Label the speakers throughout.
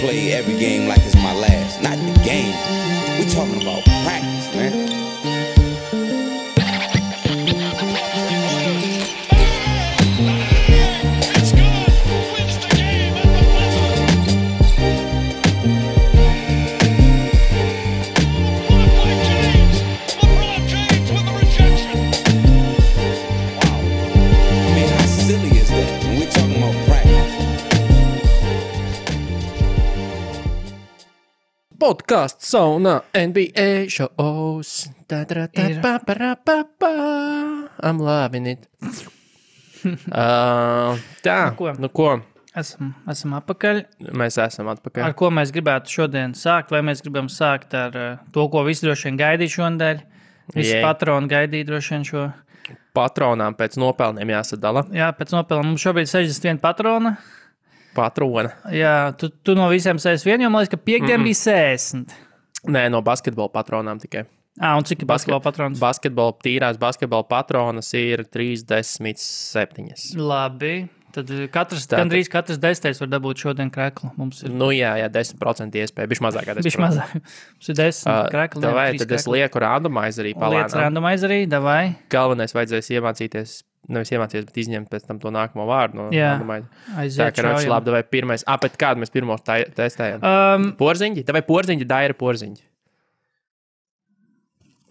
Speaker 1: play every game like it's my last. Not the game. We talking about practice, man.
Speaker 2: Podcast sauna NBA shows. I'm loving it. Tā, nu ko?
Speaker 3: Esam atpakaļ.
Speaker 2: Mēs esam atpakaļ.
Speaker 3: Ar ko mēs gribētu šodien sākt? Vai mēs gribam sākt ar to, ko visi droši vien gaidīja šonadēļ? Visi patroni gaidīja droši vien šo.
Speaker 2: Patronām pēc nopelniem jāsadala.
Speaker 3: Jā, pēc nopelniem. Mums šobrīd 61 patrona.
Speaker 2: Patrona.
Speaker 3: Jā, tu no visiem 61, jo man liekas, ka piekdien bija 60.
Speaker 2: Nē, no basketbola patronām tikai.
Speaker 3: Un cik ir basketbola patronas?
Speaker 2: Tīrās basketbola patronas ir 37.
Speaker 3: Labi. Tad gandrīz katrs 10. var dabūt šodien kreklu. Mums ir...
Speaker 2: Nu jā, 10% iespēja. Bišķi mazāk kā 10%.
Speaker 3: Bišķi mazāk. Mums ir 10 krekli.
Speaker 2: Davai, tad es lieku randomizerī palēnām.
Speaker 3: Liec randomizerī, davai.
Speaker 2: Galvenais vajadzēs iemācīties, nevis iemācīties, bet izņemt pēc tam to nākamo vārdu no randomizera.
Speaker 3: Aiziet
Speaker 2: tā, ka labi, davai pirmais. Pēc kādu mēs pirmo testējam? Porziņģi? Davai porziņģi, daira porziņģi.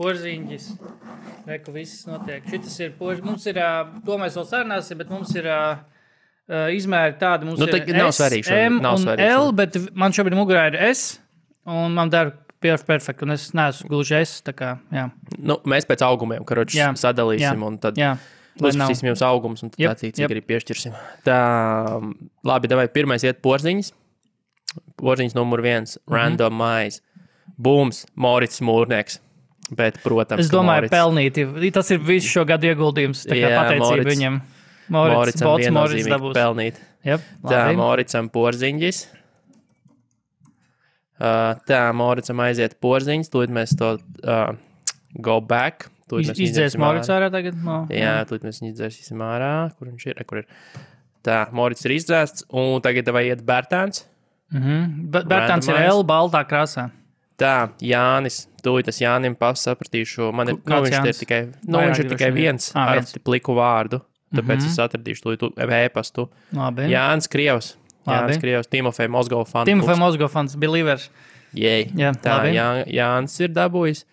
Speaker 3: Porziņģis. Reku, viss notiek. Šitas ir porziņģis. Mums ir, to mēs vēl sarunāsim, bet mums ir izmēri tādi. Mums ir S, M un L, bet man šobrīd mugurā ir S, un man dara perfekti, un es neesmu gluži S, tā kā, jā.
Speaker 2: Nu, mēs pēc augumiem, karoči, sadalīsim, un tad uzsprasīsim jums augums, un tad cik arī piešķirsim. Tā, labi, davai, pirmais iet porziņas. Porziņas numur 1, randomize. Bums, Morits Mūrnieks. Bet, protams,
Speaker 3: es domāju, pelnīti. Tas ir visu šo gadu ieguldījums, tā kā pateicība viņam.
Speaker 2: Moricam viennozīmīgi pelnīt. Tā, Moricam porziņģis. Tā, Moricam aiziet porziņas. Tūlīt mēs to go back.
Speaker 3: Izdzēs Moric ārā tagad?
Speaker 2: Jā, tūlīt mēs izdzēsim ārā. Kur viņš ir? Kur ir? Tā, Moric ir izdzēsts. Un tagad vai iet Bērtāns.
Speaker 3: Bērtāns ir L baltā krāsā.
Speaker 2: Tā, Jānis. Tūlīt es Jānim sapratīšu. Man ir, viņš ir tikai viens ar pliku vārdu. Tāpēc es atradīšu to e-pastu. Jānis Krievs. Timofej Mozgov fans.
Speaker 3: Timofej Mozgov fans, Believers.
Speaker 2: Jā, tā, Jānis ir dabūjis.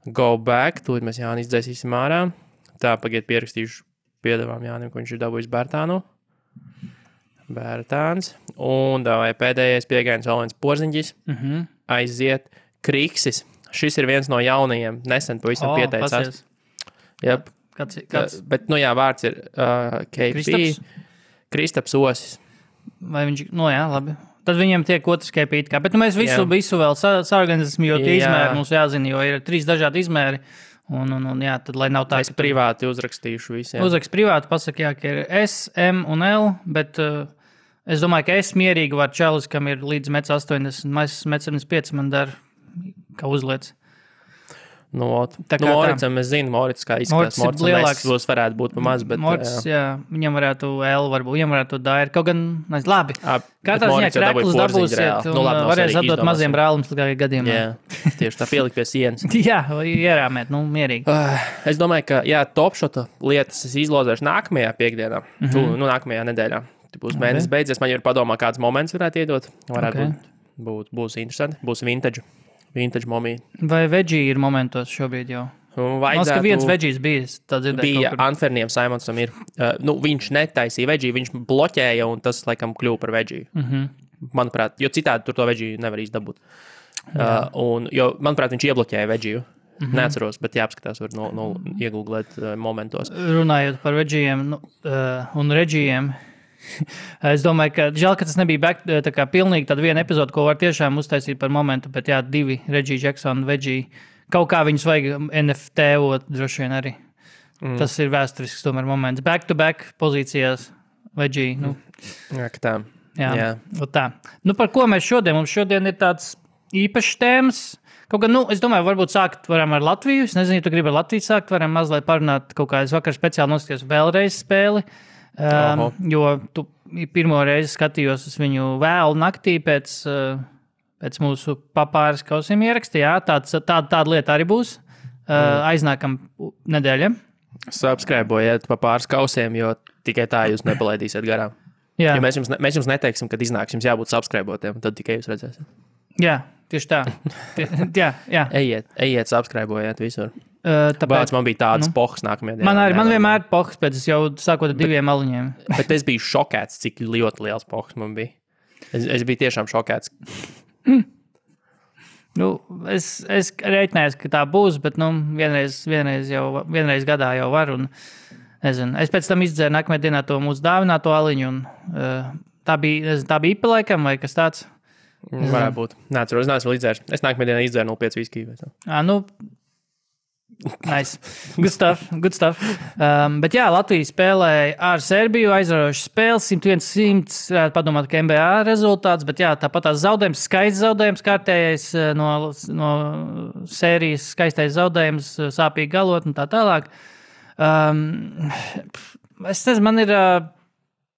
Speaker 2: Go back. Tūlīt mēs Jāni izdzēsīsim ārā. Tā, pagaid pierakstīšu piedevām Jānim, ko viņš ir dabūjis Bērtānu. Bērtāns. Un davai pēdējais piegājums vēl viens porziņģis. Aiziet Kriksis. Šis ir viens no jaunajiem. Nesen pavisam pieteicās. Jep.
Speaker 3: Kāds?
Speaker 2: Bet, nu jā, vārds ir KP. Kristaps Osis.
Speaker 3: Vai viņš, labi. Tad viņiem tiek otrs KP. Bet mēs visu vēl saorganizēsim, jo tie izmēri mums jāzina, jo ir 3 dažādi izmēri. Un jā, tad, lai nav tā,
Speaker 2: es privāti uzrakstīšu visiem.
Speaker 3: Uzrakst privāti, pasaka, ka ir S, M un L, bet es domāju, ka es mierīgi var čalis, kam ir līdz 1,80 m, 1,75 m man dar, kā uzliec.
Speaker 2: Moricam es zinu, Morits kā izskatās. Moricam lielāks varētu būt pa maz, bet...
Speaker 3: Morits, jā, viņam varētu L, varbūt, viņam varētu dair. Kaut gan, labi, katrā ziņā kreklis dabūsiet un varēs atdot maziem brālums līdz gadiem.
Speaker 2: Jā, tieši tā pielikt pie sienas.
Speaker 3: Jā, ierāmēt, mierīgi.
Speaker 2: Es domāju, ka, topšota lietas es izlozēšu nākamajā piekdienā, nākamajā nedēļā. Būs mēnesis beidzies, man jau ir padomā, kāds moments varētu iedot. Varētu būs interesanti, būs vintage momija.
Speaker 3: Vai veggie ir momentos šobrīd jau? Vajadzētu... ka viens veggies
Speaker 2: bija Anferniem Simonsam ir. Viņš netaisīja veggie, viņš bloķēja un tas, laikam, kļuva par veggie. Manuprāt, jo citādi tur to veggie nevar izdabūt. Jo, manuprāt, viņš iebloķēja veggie. Neatceros, bet jāapskatās, var iegooglēt momentos.
Speaker 3: Runājot par veggiejiem un reģijiem, es domāju, ka žēl, ka tas nebija tā kā pilnīgi tāda viena epizode, ko var tiešām uztaisīt par momentu, bet 2 Reggie Jackson, veggie, kaut kā viņus vajag NFT-ot droši vien arī. Tas ir vēsturisks tomēr moments. Back-to-back pozīcijās veggie.
Speaker 2: Jā, ka tā.
Speaker 3: Jā. Tā. Par ko mēs šodien? Mums šodien ir tāds īpašs tēmas. Kaut gan, es domāju, varbūt sākt varam ar Latviju. Es nezinu, ja tu gribi ar Latviju sākt, varam mazliet parunāt kaut kā. Es vakar speciāli noskatījos vēlreiz spēli. Jo tu pirmo reizi skatījos uz viņu vēlu naktī pēc mūsu papāras kausiem ieraksta. Jā, tāda lieta arī būs aiznākam nedēļam.
Speaker 2: Subscribojiet pa pāris kausiem, jo tikai tā jūs nepalaidīsiet garām.
Speaker 3: Jā.
Speaker 2: Ja mēs jums neteiksim, kad iznāks, jums jābūt subscribotiem, tad tikai jūs redzēsiet.
Speaker 3: Jā, tieši tā. jā.
Speaker 2: Ejiet, subscribojiet visur.
Speaker 3: Tāpēc
Speaker 2: man bija tāds pohs nākamajā dienā.
Speaker 3: Man vienmēr ir pohs, pēc es jau sākot ar 2 aliņiem.
Speaker 2: Bet es biju šokēts, cik ļoti liels pohs man bija. Es biju tiešām šokēts.
Speaker 3: Nu, es reiķinājos, ka tā būs, bet vienreiz gadā jau var. Un, nezinu, es pēc tam izdzēru nākamajā dienā to mūsu dāvināto aliņu. Un, tā bija IPA laikam vai kas tāds?
Speaker 2: Varētu būt. Neatceros, es neesmu izdzērs. Es nākamajā dienā izdzēru 0,5 viskiju.
Speaker 3: Nice. Good stuff. Bet jā, Latvija spēlēja ar Serbiju, aizraujoši spēles, 101-100, padomāt, ka NBA rezultāts, bet jā, tāpat tās zaudējums, skaists zaudējums, kārtējais no sērijas, skaistais zaudējums, sāpīgi galot un tā tālāk. Es nezinu, man ir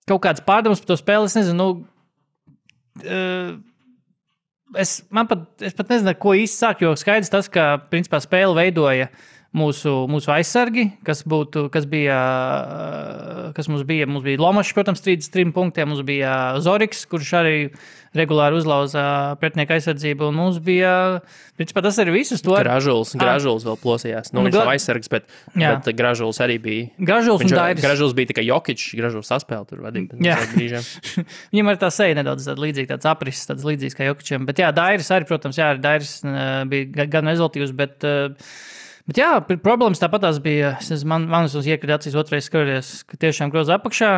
Speaker 3: kaut kāds pārdoms par to spēli, es nezinu, Es pat nezinu, ko īsti sākt, jo skaidrs tas, ka principā spēli veidoja mūsu aizsargi, kas mums bija Lomašs, protams, 33 punktiem, mums bija Zoriks, kurš arī regulāri uzlauza pretinieku aizsardzību, un mums bija, principā tas arī visus to.
Speaker 2: Gražuls vēl plosījās. Viņš nav aizsargs, bet Gražuls arī bija. Gražuls bija tikai Jokičs, Gražuls saspēle tur vadīja.
Speaker 3: Viņam arī tā seja nedaudz līdzīga, tāds aprises, tāds līdzīgs kā Jokičam, bet jā, Dairis arī, protams, Dairis bija gan rezultīvs, bet jā, problēmas tāpatās bija, manas iekrita acīs otrais skatoties, ka tiešām groza apakšā,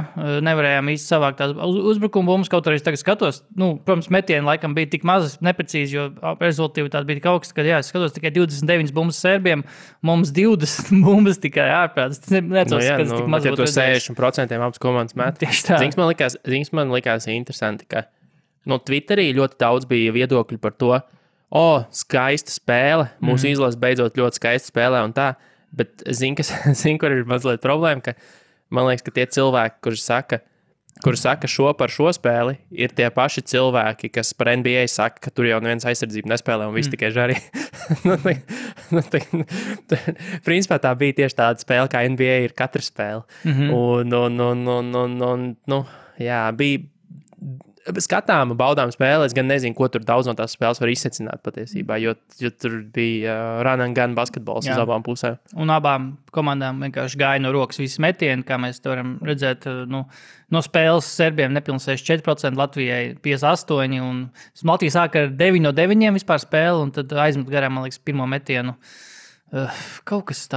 Speaker 3: nevarējām īsti savākt tās uzbrukumu bumbas, kaut arī tagad skatos, protams, metieni laikam bija tik maz neprecīzi, jo rezultīvi tāda bija tik augsta, ka es skatos tikai 29 bumbas Serbiem, mums 20 bumbas tikai ārprāts.
Speaker 2: Ja tu 60% abas komandas met.
Speaker 3: Tieši tā.
Speaker 2: Zings man likās interesanti, ka Twitterī ļoti daudz bija viedokļi par to, skaista spēle. Mūsu izlase beidzot ļoti skaista spēlē un tā. Bet kur ir mazliet problēma, ka man liekas, ka tie cilvēki, kuri saka šo par šo spēli, ir tie paši cilvēki, kas par NBA saka, ka tur jau neviens aizsardzību nespēlē un viss tikai žarī. Principā tā bija tieši tāda spēle, kā NBA ir katra spēle. Bija skatāma, baudām spēle. Es gan nezinu, ko tur daudz no tās spēles var izsecināt patiesībā, jo tur bija run and gun basketbols uz abām pusēm. Un
Speaker 3: abām komandām vienkārši gāja no rokas visi metieni, kā mēs varam redzēt, no spēles Serbiem nepilnīgi 64%, Latvijai 58%, un Latvija sāka ar 9 no 9 vispār spēli, un tad aizmet garām, man liekas, pirmo metienu. Kaut kas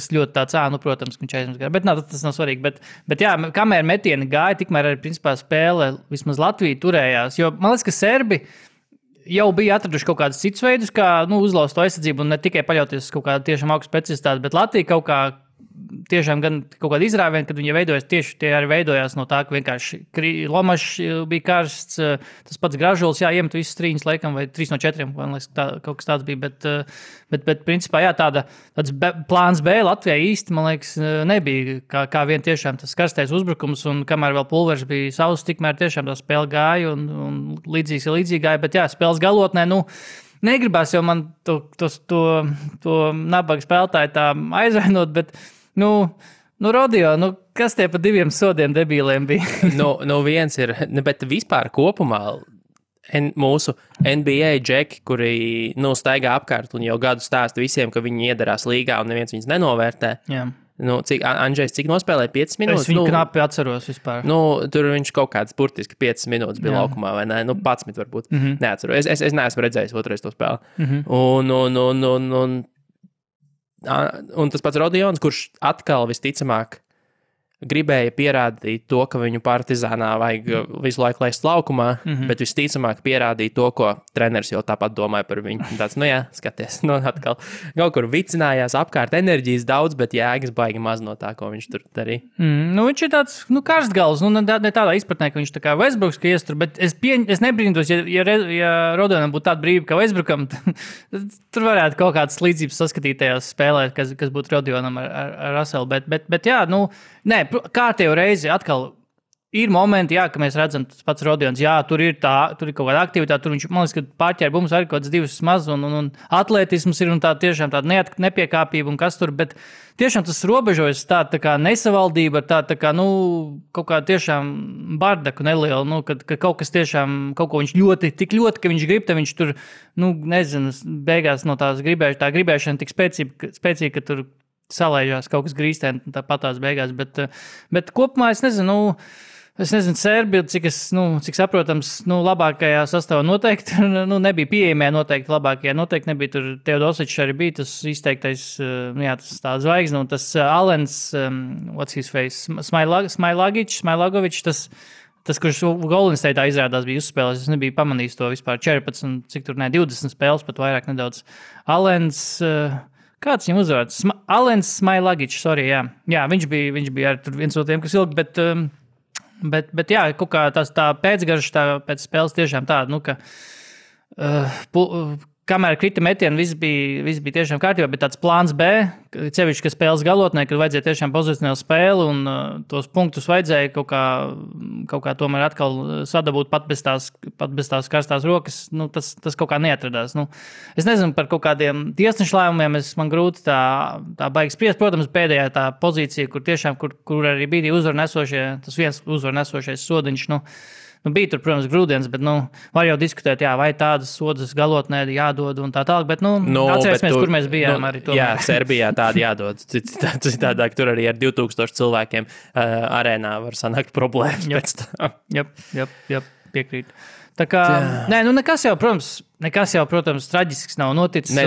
Speaker 3: ļoti tāds, protams, ka viņš aizmest garām, bet tas nav svarīgi. Bet jā, kamēr metieni gāja, tikmēr arī principā spēle vismaz Latvija turējās, jo man liekas, ka Serbi jau bija atraduši kaut kādus citus veidus, kā uzlauzt to aizsardzību un ne tikai paļauties uz kaut kādu tiešām augstu specialitāti, bet Latvija kaut kā tiešām gan kaut kāda izrāviena, kad viņi veidojas tieši tie arī veidojās no tā, ka vienkārši Lomašs bija karsts, tas pats Gražuls, iemet visas 3 laikam, vai 3 no 4, man liekas, kaut kas tāds bija, bet principā, tāds plāns B Latvijai īsti, man liekas, nebija, kā vien tiešām tas karstais uzbrukums, un kamēr vēl pulvers bija savs, tikmēr tiešām tā spēle gāja, un līdzīgi gāja, bet jā, spēles galotnē, negribās jau man to nabaga spēlētāju tā aizvainot, bet, Rodio, kas tie pa 2 sodiem debīliem bija?
Speaker 2: Viens ir, bet vispār kopumā mūsu NBA džeki, kuri, staigā apkārt un jau gadu stāsta visiem, ka viņi iedarās līgā un neviens viņus nenovērtē. Jā. Andžejs, cik nospēlēja 5 minūtes?
Speaker 3: Es viņu knapi atceros vispār.
Speaker 2: Tur viņš kaut kāds burtiski 5 minūtes bija laukumā, vai ne? 11 varbūt. Neatceros. Es neesmu redzējis otrais to spēli. Un tas pats Rodions, kurš atkal visticamāk gribēja pierādīt to, ka viņu Partizānā vajag visu laiku laist laukumā, bet visticamāk pierādīja to, ko treneris jau tāpat domāja par viņu. Tāds, skaties, atkal kaut kur vicinājās apkārt enerģijas daudz, bet jēgas baigi maz no tā, ko viņš tur darīja.
Speaker 3: Viņš ir tāds, karstgals, ne tādā izpratnē, ka viņš tā kā Westbrooks, ka iestur, bet es nebrīnītos, ja Rodionam būtu tāda brīva, ka Westbrookam, tur varētu kaut kādas līdzības saskatīt tajās spēlē, kas būtu Rodionam ar Russellu, bet jā, kārtējo reizi atkal ir momenti, jā, ka mēs redzam, tas pats Rodions, jā, tur ir kaut kāda aktivitāte, tur viņš, man liekas, ka pārķēra mums arī kaut kāds divas maz, un atletisms ir, un tā tiešām tāda nepiekāpība, un kas tur, bet tiešām tas robežojas tā kā nesavaldība, tā kā, kaut kā tiešām bardaku neliela, kad kaut kas tiešām, kaut ko viņš tik ļoti, ka viņš grib, tad viņš tur, nezinu, beigās no tā gribēšana tik spēcīga, ka tur salaižās kaut kas grīstēn, tāpat tās beigās, bet kopumā es nezinu, Serbija, cik saprotams, labākajā sastāvā noteikti, nebija pieejamie noteikti labākajā, noteikti nebija tur Teodosičs arī bija tas izteiktais, tas tā zvaigzne, un tas Alens, what's his face, Smailagovičs, tas, kurš Golden State'ā izrādās bija uzspēlējis, es nebiju pamanījis to vispār 14, cik tur 20 spēles, pat vairāk nedaudz. Alens, kāds viņam uzvārds? Alens Smailagičs, sorry, jā. Jā, viņš bija arī tur viens no tiem, kas ilgi, bet jā, kaut kā tā pēcgarša pēc spēles tiešām tāda, ka kamēr krita metieni, viss bija tiešām kārtībā, bet tāds plāns B, cevišķi, ka spēles galotnē, kad vajadzēja tiešām pozicionālu spēli un tos punktus vajadzēja kaut kā tomēr atkal sadabūt pat bez tās karstās rokas, tas kaut kā neatradās. Es nezinu par kaut kādiem tiesnešu lēmumiem, man grūti tā baigi spriest. Protams, pēdējā tā pozīcija, kur tiešām, kur arī bija tas viens uzvarnesošais sodiņš, bija tur, protams, grūdienis, bet, var jau diskutēt, vai tādas sodas galotnē jādod un tā tālāk, bet, atcerēsimies, kur mēs bijām arī tomēr.
Speaker 2: Jā, Serbijā tāda jādod. Citādāk tur arī ar 2000 cilvēkiem arēnā var sanākt problēmas pēc tā.
Speaker 3: Jep, piekrīt. Tā kā, nekas jau, protams, traģisks nav noticis.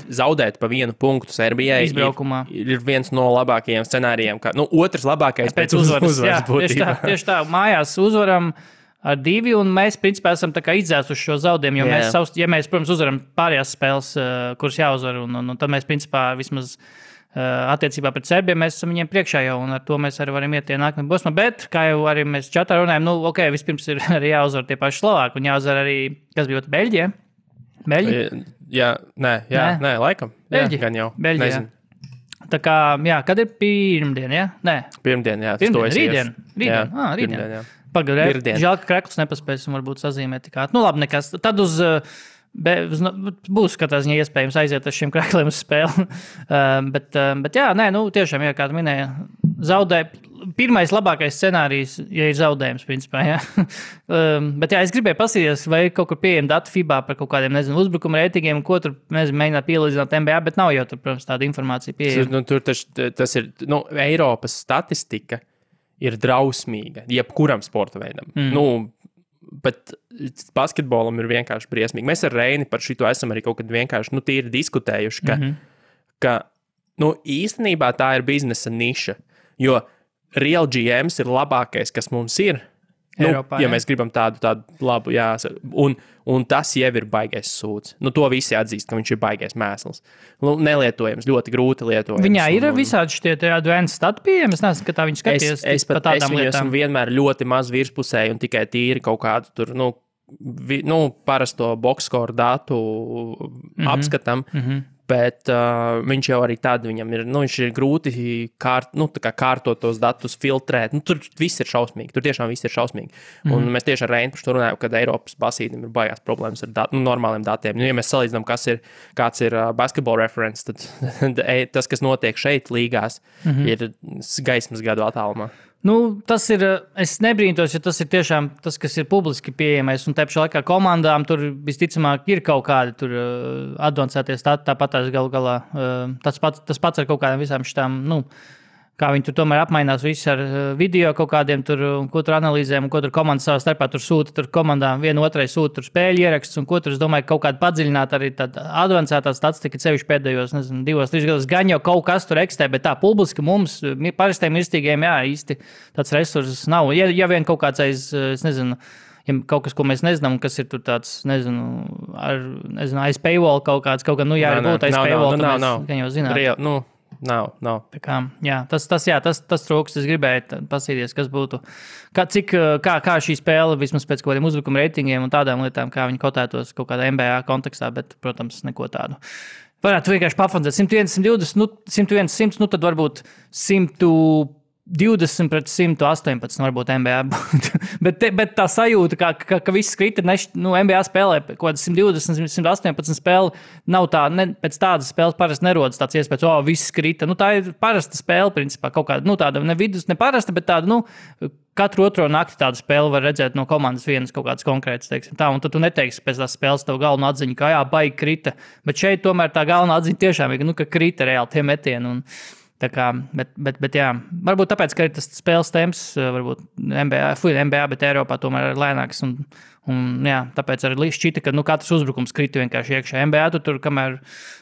Speaker 2: Zaudēt pa vienu punktu Serbijai
Speaker 3: izbraukumā
Speaker 2: ir viens no labākajiem scenārijiem. Otrs labākais pēc uzvaras būtībā.
Speaker 3: Tieši tā, mājās uzvaram ar 2, un mēs, principā, esam tā kā izdzēsuši šo zaudējumu, jo mēs, protams, uzvaram pārējās spēles, kuras jāuzvar, un tad mēs, principā, vismaz attiecībā pret Serbiju, mēs esam viņiem priekšā jau, un ar to mēs arī varam iet tie nākamie posmā, bet, kā jau arī mēs čatā runājam, vispirms ir arī jāuzvar tie paši Slovāki, un jāuzvar arī, kas bija Beļģija?
Speaker 2: Nē, laikam.
Speaker 3: Beļģija.
Speaker 2: Gan jau.
Speaker 3: Beļģija. Nezinu. Tā kā, kad ir pirmdien, ja? Nē.
Speaker 2: Pirmdien, jā.
Speaker 3: Rītdien. Rītdien, jā. Pagaidām, žēl, ka Krekls nepaspēsim varbūt sazīmēt tik ātri. Labi, nekas. Tad būs katrā ziņā iespējams aiziet ar šiem Krekliem uz spēli. bet jā, tiešām, kā tu minēji, zaudē. Pirmais labākais scenārijs, ja ir zaudējums, principā, jā. Bet jā, es gribēju pasīties, vai kaut kur pieejam datu FIBA par kaut kādiem, uzbrukuma reitingiem, ko tur, mēģināt pielīdzināt NBA, bet nav jau tur, protams, tāda informācija pieejama.
Speaker 2: Tur tas ir, Eiropas statistika ir drausmīga, jebkuram sporta veidam. Bet basketbolam ir vienkārši briesmīgi. Mēs ar Reini par šito esam arī kaut kad vienkārši tīri diskutējuši, ka īstenībā tā ir biznesa niša, jo Real GMs ir labākais, kas mums ir.
Speaker 3: Eiropā,
Speaker 2: ja mēs gribam tādu labu, jā, un tas jau ir baigais sūds. To visi atzīst, ka viņš ir baigais mēsls. Nelietojams, ļoti grūti lietojams.
Speaker 3: Viņā ir visādi šitie advanced stati pieejami. Es nezinu, ka tā viņš skaties pa tādām lietām. Es esmu vienmēr
Speaker 2: ļoti maz virspusēji un tikai tīri kaut kādu tur, parasto boxscore datu apskatam. Bet viņš jau arī tad viņam ir, viņš ir grūti kārtot tos datus, filtrēt. Tur viss ir šausmīgi, tur tiešām viss ir šausmīgi. Un mēs tieši ar Reinu par to runājam, kad Eiropas basītim ir baigās problēmas ar normāliem datiem. Ja mēs salīdzinām, kāds ir basketball reference, tad tas, kas notiek šeit līgās, ir gaismas gadu attālumā.
Speaker 3: Tas ir, es nebrīnos, ja tas ir tiešām tas, kas ir publiski pieejamais, un tāpēc laikā komandām tur visticamāk ir kaut kādi tur advancētie stati, tāpat tās galu galā, tas pats ar kaut kādām visām šitām, kā viņi tur tomēr apmainās visi ar video kaut kādiem tur, ko tur analīzēm, un ko tur komandas savā starpā tur sūta, tur komandām vienu otrai sūta tur spēļu ieraksts, un ko tur, es domāju, kaut kādu padziļināt arī tāda advancētā statistika, sevišķi pēdējos, 2-3 gadus, gan jau kaut kas tur eksistē, bet tā publiski mums, parastiem mirstīgiem, jā, īsti tāds resurss nav. Ja vien kaut kāds es nezinu, ja kaut kas, ko mēs nezinām, kas ir tur tāds, aiz paywall kaut kāds, jā, arī būtu aiz paywall, gan jau zināt.
Speaker 2: Nav.
Speaker 3: Tā kā, jā, tas trūkst. Es gribēju pasīties, kas būtu, kā šī spēle, vismaz pēc kaut kādiem uzbrukuma reitingiem un tādām lietām, kā viņi kotētos kaut kādā NBA kontekstā, bet, protams, neko tādu. Varētu vienkārši pafanzēt 101, 120, 101, 100, tad varbūt 100 20 pret 118 varbūt NBA. bet tā sajūta, ka viss krita, NBA spēlē kaut kādas 120, 118 spēle, nav tā, pēc tādas spēles parasti nerodas tāds iespējas, viss krita. Tā ir parasta spēle, principā, kaut kāda, tāda ne vidus, ne parasta, bet tāda, katru otro nakti tādu spēli var redzēt no komandas vienas kaut kādas konkrētas, teiksim tā, un tad tu neteiksi pēc tās spēles tev galveno atziņu, ka baigi krita, bet šeit tomēr tā galvenā atziņa tiešām ir, ka krita reāli tie metieni, un tā kā, bet jā, varbūt tāpēc, ka ir tas spēles temps, varbūt NBA, bet Eiropā tomēr ir lēnāks, un jā, tāpēc arī šķita, ka katrs uzbrukums krita vienkārši iekšā. NBA tur kamēr,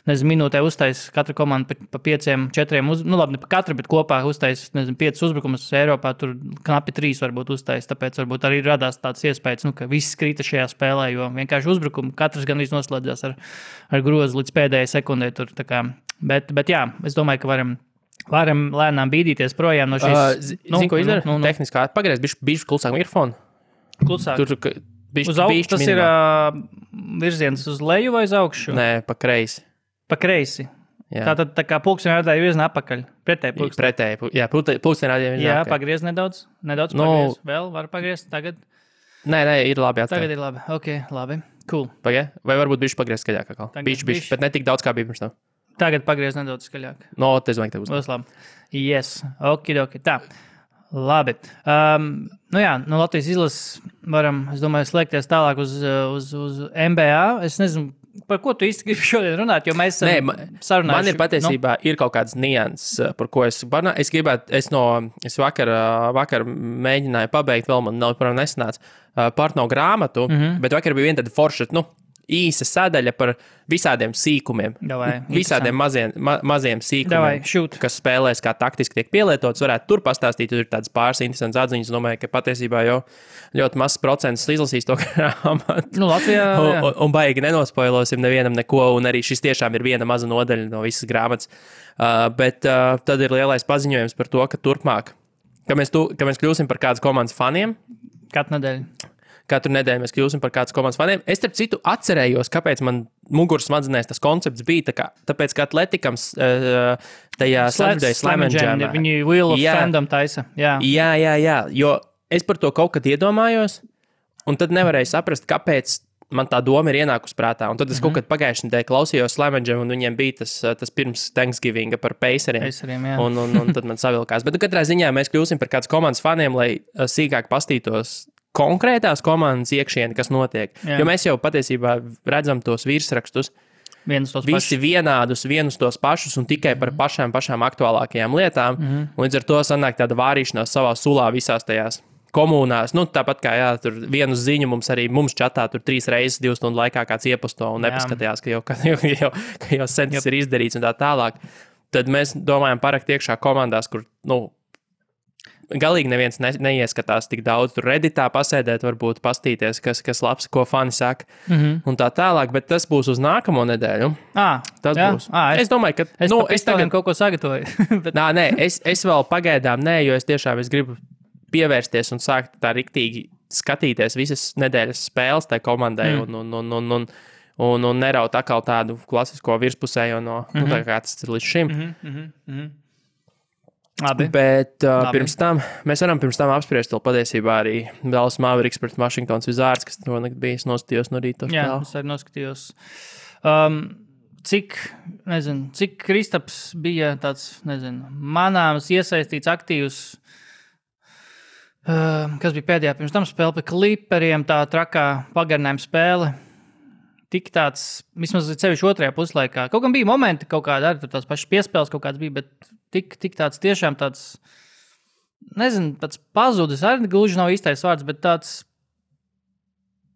Speaker 3: minūtē uztais katra komanda pa 5, 4, labi, ne pa katra, bet kopā uztais, 5 uzbrukumus Eiropā, tur knapi 3 varbūt uztais, tāpēc varbūt arī radās tāds iespējas, ka viss krita šajā spēlē, jo vienkārši uzbrukumu katrs gandrīz noslēdzās ar grozu līdz pēdējai sekundē tur, tā kā, bet jā, es domāju, ka varam lēnām bīdīties projām no šīs.
Speaker 2: Zini, ko izdara? Tehniskā pagriez, bišķi klusāk mikrofonu.
Speaker 3: Klusāk.
Speaker 2: Tur
Speaker 3: uz augšu tas ir virziens uz leju vai uz augšu?
Speaker 2: Nē, pa kreisi.
Speaker 3: Pa kreisi. Tātad tā kā pulksteņa rādāja virzienā apakaļ. Pretēji pulksteņa.
Speaker 2: Pretēji, pulksteņa rādāja virzienā.
Speaker 3: Jā, pagriez nedaudz pagriez. Vēl var pagriezt tagad?
Speaker 2: Nē, ir labi atstāt.
Speaker 3: Tagad ir labi. Ok, labi. Cool.
Speaker 2: Pagaid, vai varbūt bišķi pagriezt skaļāk atkal? Bišķi, bet ne tik daudz kā bija pirms tam.
Speaker 3: Tagad pagriez nedaudz skaļāk.
Speaker 2: Es domāju, ka tev
Speaker 3: būs labi. Yes, okidoki. Tā, labi. Latvijas izlases varam, es domāju, slēgties tālāk uz NBA. Es nezinu, par ko tu īsti gribi šodien runāt, jo mēs sarunājuši.
Speaker 2: Man ir patiesībā ir kaut kāds nianses, par ko es gribētu, es vakar mēģināju pabeigt, vēl man nav nesanāca Partno grāmatu, bet vakar bija viena tāda forša, īsa sadaļa par visādiem sīkumiem. Visādiem maziem sīkumiem, kas spēlēs kā taktiski tiek pielietots. Varētu tur pastāstīt, tur ir tādas pāris interesantas atziņas. Domāju, ka patiesībā jau ļoti mazs procents izlasīs to grāmatu.
Speaker 3: Latvijā.
Speaker 2: Un baigi nenospoilosim nevienam neko, un arī šis tiešām ir viena maza nodaļa no visas grāmatas. Bet tad ir lielais paziņojums par to, ka turpmāk, ka mēs kļūsim par kādas komandas faniem. Katru nedēļu mēs kļūsim par kādas komandas faniem. Es, starp citu, atcerējos, kāpēc man muguras smadzenēs tas koncepts bija. Tāpēc, ka Atletikams tajā Saturday Slam and Jam.
Speaker 3: Viņi Wheel of Fandom taisa. Jā,
Speaker 2: jo es par to kaut kad iedomājos, un tad nevarēju saprast, kāpēc man tā doma ir ienākusi prātā. Un tad es kaut kad pagājušajā nedēļā klausījos Slam and Jam, un viņiem bija tas pirms Thanksgivinga par Paceriem. Un tad man savilkās. Bet katrā ziņā mēs kļūsim par kādas komandas faniem, lai sīkāk pastītos konkrētās komandas iekšieni, kas notiek. Jā. Jo mēs jau patiesībā redzam tos virsrakstus. Visi vienādus, vienus tos pašus un tikai par pašām aktuālākajām lietām. Līdz ar to sanāk tāda vārīšanās savā sulā visās tajās komunās. Tāpat kā tur vienu ziņu mums čatā tur 3 reizes 2 stundu laikā kāds ieposto un nepaskatījās, ka jau sen tas ir izdarīts un tā tālāk. Tad mēs domājam parakt iekšā komandās, kur, galīgi neviens neieskatās tik daudz. Tur Redditā pasēdēt, varbūt pastīties, kas labs, ko fani saka, un tā tālāk, bet tas būs uz nākamo nedēļu. Tas būs. Es domāju, ka...
Speaker 3: Es tagad kaut ko sagatavoju.
Speaker 2: Bet... es vēl pagaidām jo es gribu pievērsties un sākt tā riktīgi skatīties visas nedēļas spēles tai komandai un neraut atkal tādu klasisko virspusējo tā kā tas ir līdz šim.
Speaker 3: Labi.
Speaker 2: Bet pirms tam mēs varam apspriest vēl patiesībā arī Dallas Mavericks pret Washingtons Wizards, kas bija noskatījos no rīta.
Speaker 3: Jā, es arī noskatījos. Cik Kristaps bija tāds, manāms iesaistīts aktīvs, kas bija pēdējā pirms tam spēle pie Clipperiem, tā trakā pagarinājuma spēle. Tik tāds, vismaz cevišķi otrajā puslaikā. Kaut gan bija momenti, kaut kāda arī tās pašas piespēles kaut kāds bija, bet tik tāds tiešām tāds, tāds pazudis, arī gluži nav īstais vārds, bet tāds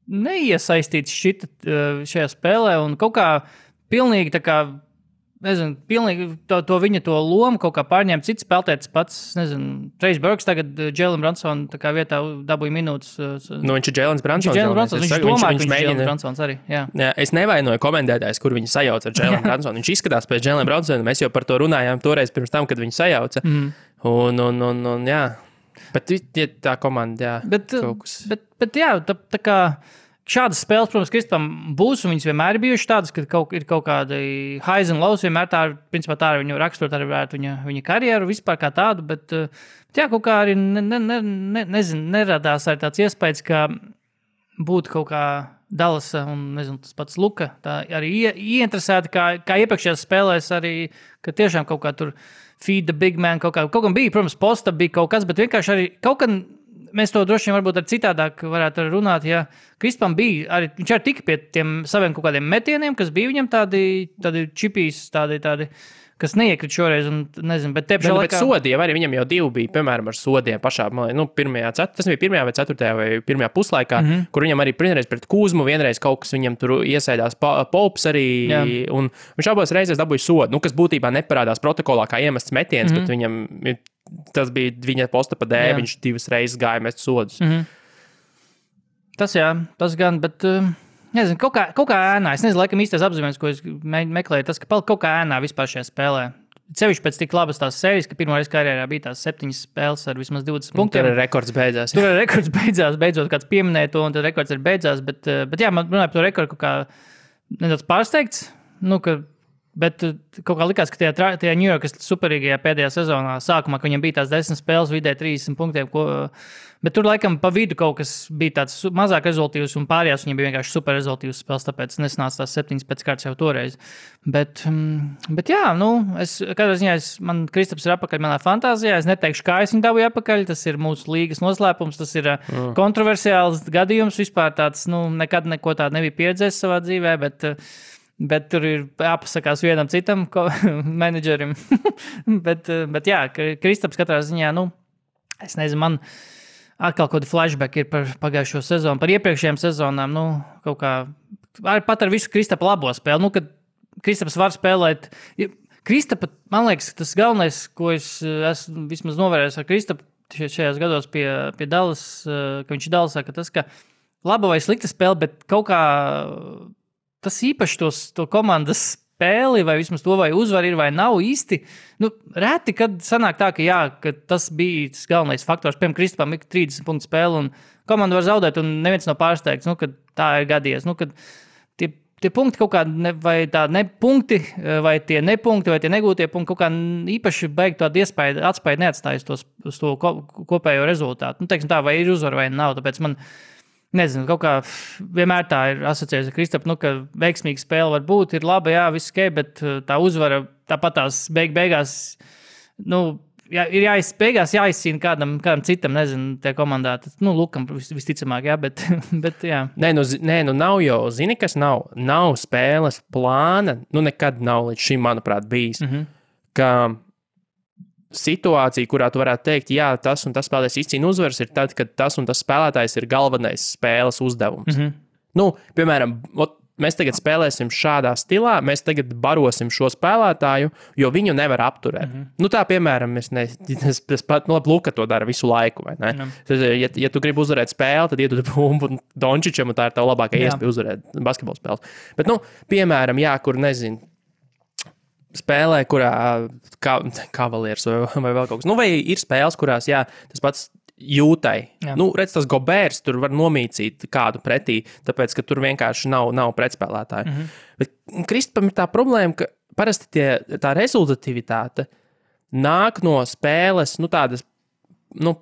Speaker 3: neiesaistīts šajā spēlē un kaut kā pilnīgi tā kā, pilnīgi to viņa to lomu kaut kā pārņēma cits spēlētājs pats, Trace Burks tagad Jalen Brunson tā kā vietā dabūja minūtes.
Speaker 2: Viņš ir Jalen Brunsons.
Speaker 3: Viņš domā, ka viņš ir Jalen Brunsons arī. Jā,
Speaker 2: es nevainoju komentētājs, kur viņu sajauca ar Jalen Brunsonu. Viņš izskatās pēc Jalen Brunsona. Mēs jau par to runājām toreiz pirms tam, kad viņu sajauca. Un jā. Bet tā komanda, jā.
Speaker 3: Bet jā, tā kā šādas spēles, protams, Kristapam būs, un viņas vienmēr ir bijušas tādas, ka ir kaut kādi highs un lows, vienmēr tā ir, principā tā ir viņu raksturot arī varētu viņa karjeru vispār kā tādu, bet jā, kaut kā arī neradās arī tāds iespējas, ka būtu kaut kā Dallasa un, nezinu, tas pats Luka, tā arī ieinteresēti, kā iepriekšējās spēlēs arī, ka tiešām kaut kā tur feed the big man, kaut kā bija, protams, posta bija kaut kas, bet vienkārši arī kaut kā mēs to droši vien varbūt ar citādāk varētu runāt, ja Kristapam bija, arī, viņš arī tika pie tiem saviem kaut kādiem metieniem, kas bija viņam tādi čipīs, tādi, kas neiekrit šoreiz, un nezinu, bet te pašā
Speaker 2: laikā... Bet sodiem arī viņam jau 2 bija, piemēram, ar sodiem pašā, tas bija 1. vai 4. vai 1. puslaikā, kur viņam arī vienreiz pret Kūzmu, vienreiz kaut kas viņam tur iesēdās Pops arī, un viņš abos reizēs dabūja sodu, kas būtībā neparādās protokolā kā iemests metiens, bet viņam... Tas bija viņa posta pa dēļ, viņš 2 reizes gāja mest sodus.
Speaker 3: Tas gan, bet nezinu, kaut kā ēnā. Es nezinu, laikam īstais apzīmējums, ko es meklēju, tas, ka palika kaut kā ēnā vispār šajā spēlē. Sevišķi pēc tik labas tās sērijas, ka pirmo reizi karjerā bija tās 7 spēles ar vismaz 20 punktiem.
Speaker 2: Tur rekords beidzās.
Speaker 3: Beidzot kāds pieminēja to, un tad rekords ir beidzās, bet jā, man runāja par to rekordu kaut kā nedaudz pārsteigts, bet kaut kā likās, ka tajā New Yorkas superīgajā pēdējā sezonā sākumā, ka viņam bija tās 10 spēles vidē 30 punktiem, bet tur laikam pa vidu kaut kas bija tāds mazāk rezultīvs un pārējās viņam bija vienkārši super rezultīvs spēles, tāpēc nesanāca tās 7 pēc kārtas jau toreiz. Bet jā, katrā ziņā man Kristaps ir apakaļ manā fantāzijā, es neteikšu, kā es viņu dabūju apakaļ, tas ir mūsu līgas noslēpums, tas ir kontroversiāls gadījums, vispār tāds, nekad neko tādu nebija pieredzējis savā dzīvē, bet tur ir jāpasakās vienam citam menedžerim. bet jā, Kristaps katrā ziņā, es nezinu, man atkal kaut kādi flashback ir par pagājušo sezonu, par iepriekšējām sezonām, kaut kā, pat ar visu Kristapa labo spēli, kad Kristaps var spēlēt. Kristapa, man liekas, tas galvenais, ko es esmu vismaz novērējis ar Kristapu šajās gados pie Dallas, ka viņš ir Dallasā, ka tas, ka laba vai slikta spēle, bet kaut kā tas īpaši to komandas spēli, vai vismaz to, vai uzvar ir, vai nav īsti. Reti, kad sanāk tā, ka tas bija tas galvenais faktors. Piemēram, Kristapam ir 30 punktu spēle, un komanda var zaudēt, un neviens nav pārsteigts, kad tā ir gadījies. Kad tie punkti kaut kā, vai tā nepunkti, vai tie nepunkti, vai tie negūtie punkti kaut kā īpaši beig tādu atspēju neatstājas uz to kopējo rezultātu. Teiksim tā, vai ir uzvar, vai nav, tāpēc man... Nezinu, kaut kā vienmēr tā ir asociējusi ar Kristapu, ka veiksmīga spēle var būt, ir laba, jā, viss ok, bet tā uzvara tāpat tās beigās, ir jāizcīna kādam citam, nezinu, tie komandā, Lukam visticamāk, jā, bet jā.
Speaker 2: Nē, nav jau, zini, kas nav spēles plāna, nekad nav līdz šim, manuprāt, bijis, ka situācija, kurā tu varētu teikt, jā, tas un tas spēlētājs izcīna uzvaras, ir tad, kad tas un tas spēlētājs ir galvenais spēles uzdevums. Piemēram, mēs tagad spēlēsim šādā stilā, mēs tagad barosim šo spēlētāju, jo viņu nevar apturēt. Tā, piemēram, es pat Luka to dara visu laiku, vai ne? Ja tu gribi uzvarēt spēli, tad iedod bumbu Dončičam, un tā ir tava labākā iespēja uzvarēt basketbola spēles. Bet, piemēram, jā, kur nezinu, spēlē, kurā Cavaliers vai vēl kaut kas. Vai ir spēles, kurās, jā, tas pats jūtai. Redz, tas Gobērs tur var nomīcīt kādu pretī, tāpēc, ka tur vienkārši nav pretspēlētāju. Bet Kristapam ir tā problēma, ka parasti tā rezultativitāte nāk no spēles, tādas,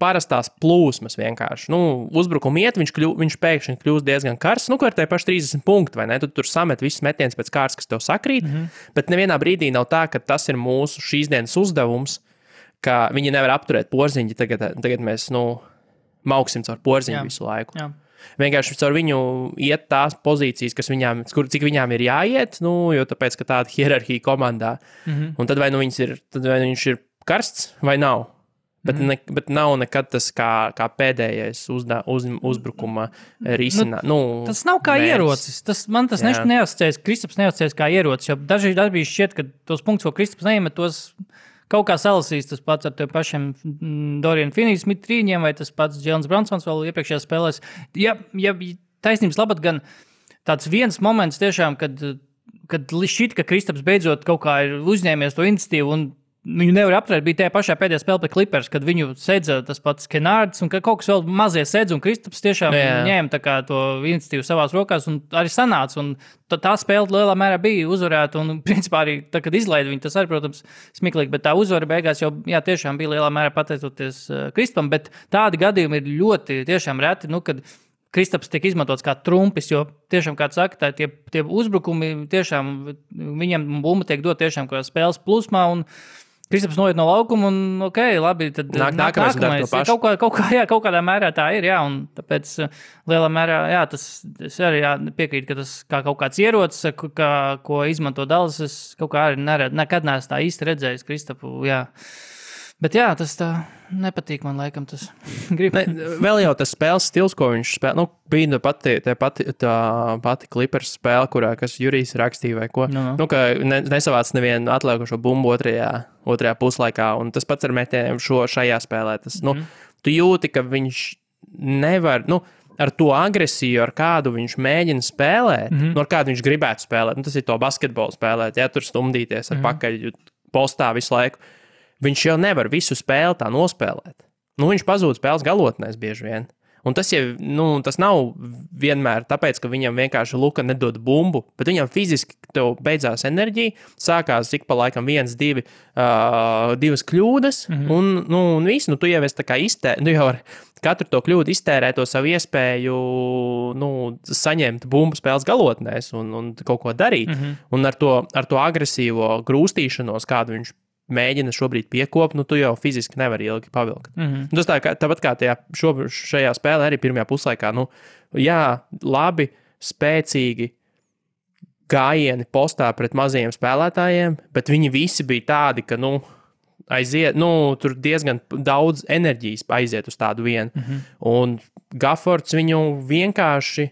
Speaker 2: parastās plūsmas vienkārši. Uzbrukuma iet, viņš pēkšņi kļūst diezgan karsts, ar tie paši 30 punkti, vai ne? Tu tur samet visus metienus pēc kārtas, kas tev sakrīt, bet nevienā brīdī nav tā, ka tas ir mūsu šīs dienas uzdevums, ka viņi nevar apturēt porziņu, tagad mēs, mauksim caur porziņu visu laiku. Jā. Vienkārši caur viņu iet tās pozīcijas, cik viņām ir jāiet, jo tāpēc, ka tāda hierarhija komandā. Un tad vai viņš ir karsts vai nav. Bet nav nekad tas kā pēdējais uzbrukuma risinājums.
Speaker 3: Tas nav kā ierocis. Man tas neasociējas, Kristaps neasociējas kā ierocis, jo dažreiz šķiet, ka tos punktus, ko Kristaps neiemet, tos kaut kā salasīs tas pats ar tiem pašiem Dorian Finney-Smith trīņiem, vai tas pats Jēlens Bronsons vēl iepriekšējās spēlēs. Ja taisnības labad gan tāds viens moments tiešām, kad šķiet, ka Kristaps beidzot kaut kā ir uzņēmies to iniciatīvu un Viņu nevar apturēt, bija tajā pašā pēdējā spēlē pret Clippers, kad viņu sedza tas pats Kenārds un kaut kas vēl mazie sedz, un Kristaps tiešām ņēma tā kā to iniciatīvu savās rokās un arī sanāca. Un tā spēle lielā mērā bija uzvarēta, un principā arī tā, kad izlaida viņu, tas arī, protams, smiklīgi, bet tā uzvara beigās jau tiešām bija lielā mērā pateicoties Kristapam, bet tādi gadījumi ir ļoti tiešām reti, kad Kristaps tiek izmantots kā trumpis, jo tiešām, kā saka, tie uzbrukumi tiešām, viņiem bumba tiek dot tiešām kā spēles plūsmā, un Kristaps noiet no laukuma, un labi, tad
Speaker 2: nākamais dara to pašu.
Speaker 3: Kaut kādā mērā tā ir, un tāpēc lielā mērā, es arī piekrītu, ka tas kā kaut kāds ierocis, ko izmanto Dallas, es kaut kā arī nekad neesmu tā īsti redzējis Kristapu, Bet tas tā nepatīk man, laikam, tas grib.
Speaker 2: Vēl jau tas spēles stils, ko viņš spēlē, bija tā pati Clippers spēle, kurā, kas Jurijs rakstīja vai ko, ka nesavāc nevienu atliekošo bumbu otrajā puslaikā, un tas pats ar metieniem šajā spēlē. Tu jūti, ka viņš nevar, ar to agresiju, ar kādu viņš mēģina spēlēt, ar kādu viņš gribētu spēlēt, tas ir to basketbolu spēlēt, tur stumdīties ar pakaļ postā visu laiku. Viņš jau nevar visu spēli tā nospēlēt. Viņš pazūd spēles galotnēs bieži vien. Un tas jau, tas nav vienmēr tāpēc, ka viņam vienkārši Luka nedod bumbu, bet viņam fiziski tev beidzās enerģija, sākās ik pa laikam 1, 2 kļūdas, un viss, tu jau esi tā kā tu jau ar katru to kļūdu iztērē to savu iespēju, saņemt bumbu spēles galotnēs un kaut ko darīt. Un ar to agresīvo grūstīšanos, kādu viņš mēģina šobrīd piekopt, tu jau fiziski nevari ilgi pavilkt. Tas tāpat kā šajā spēlē arī pirmajā puslaikā, labi, spēcīgi gājieni postā pret mazajiem spēlētājiem, bet viņi visi bija tādi, ka, aiziet, tur diezgan daudz enerģijas aiziet uz tādu vienu. Un Gaffords viņu vienkārši,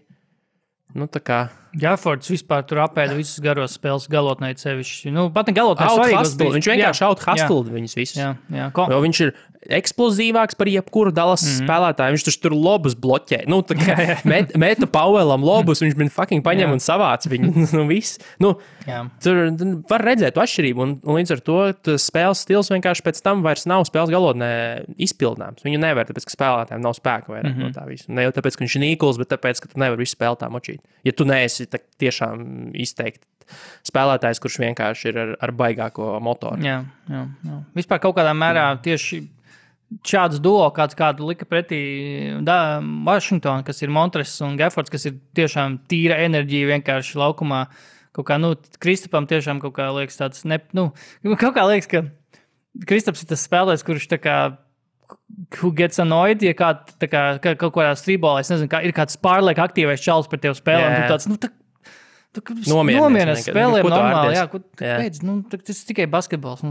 Speaker 2: tā kā
Speaker 3: Gaffords vispār tur apēda visus garos spēles galotnē sevišķi. Pat ne galotnē svarīgos bija.
Speaker 2: Viņš vienkārši out-hustled viņus visus. Jo viņš ir eksplosīvāks par jebkuru Dallas spēlētāju. Viņš tur lobus bloķē. Meta Powellam lobus, viņš man fucking paņem un savāc viņu. Viss. Tur var redzēt to atšķirību. Un līdz ar to spēles stils vienkārši pēc tam vairs nav spēles galotnē izpildāms. Viņu nevar, tāpēc, ka spēlētājiem nav spēka vairāk no tā visu. Ne jau tāpēc, ka viņš ir nīkuls, bet tāpēc, ka tu nevar visu spēli tā močīt. Ja tu neesi tiešām izteikti spēlētājs, kurš vienkārši ir ar baigāko motoru.
Speaker 3: Jā. Vispār kaut kādā mērā tieši šāds duo, kādu lika pretī Washington, kas ir Montres un Gaffords, kas ir tiešām tīra enerģija vienkārši laukumā. Kaut kā, Kristapam tiešām kaut kā liekas tāds, kaut kā liekas, ka Kristaps ir tas spēlētājs, kurš tā kā who gets annoyed, ja kaut kādā strībolā, es nezinu, ir kāds pārliek aktīvais čalis par tevi spēlēm, tu tāds, nomierinies spēlēm normāli, kāpēc, tas tikai basketbols.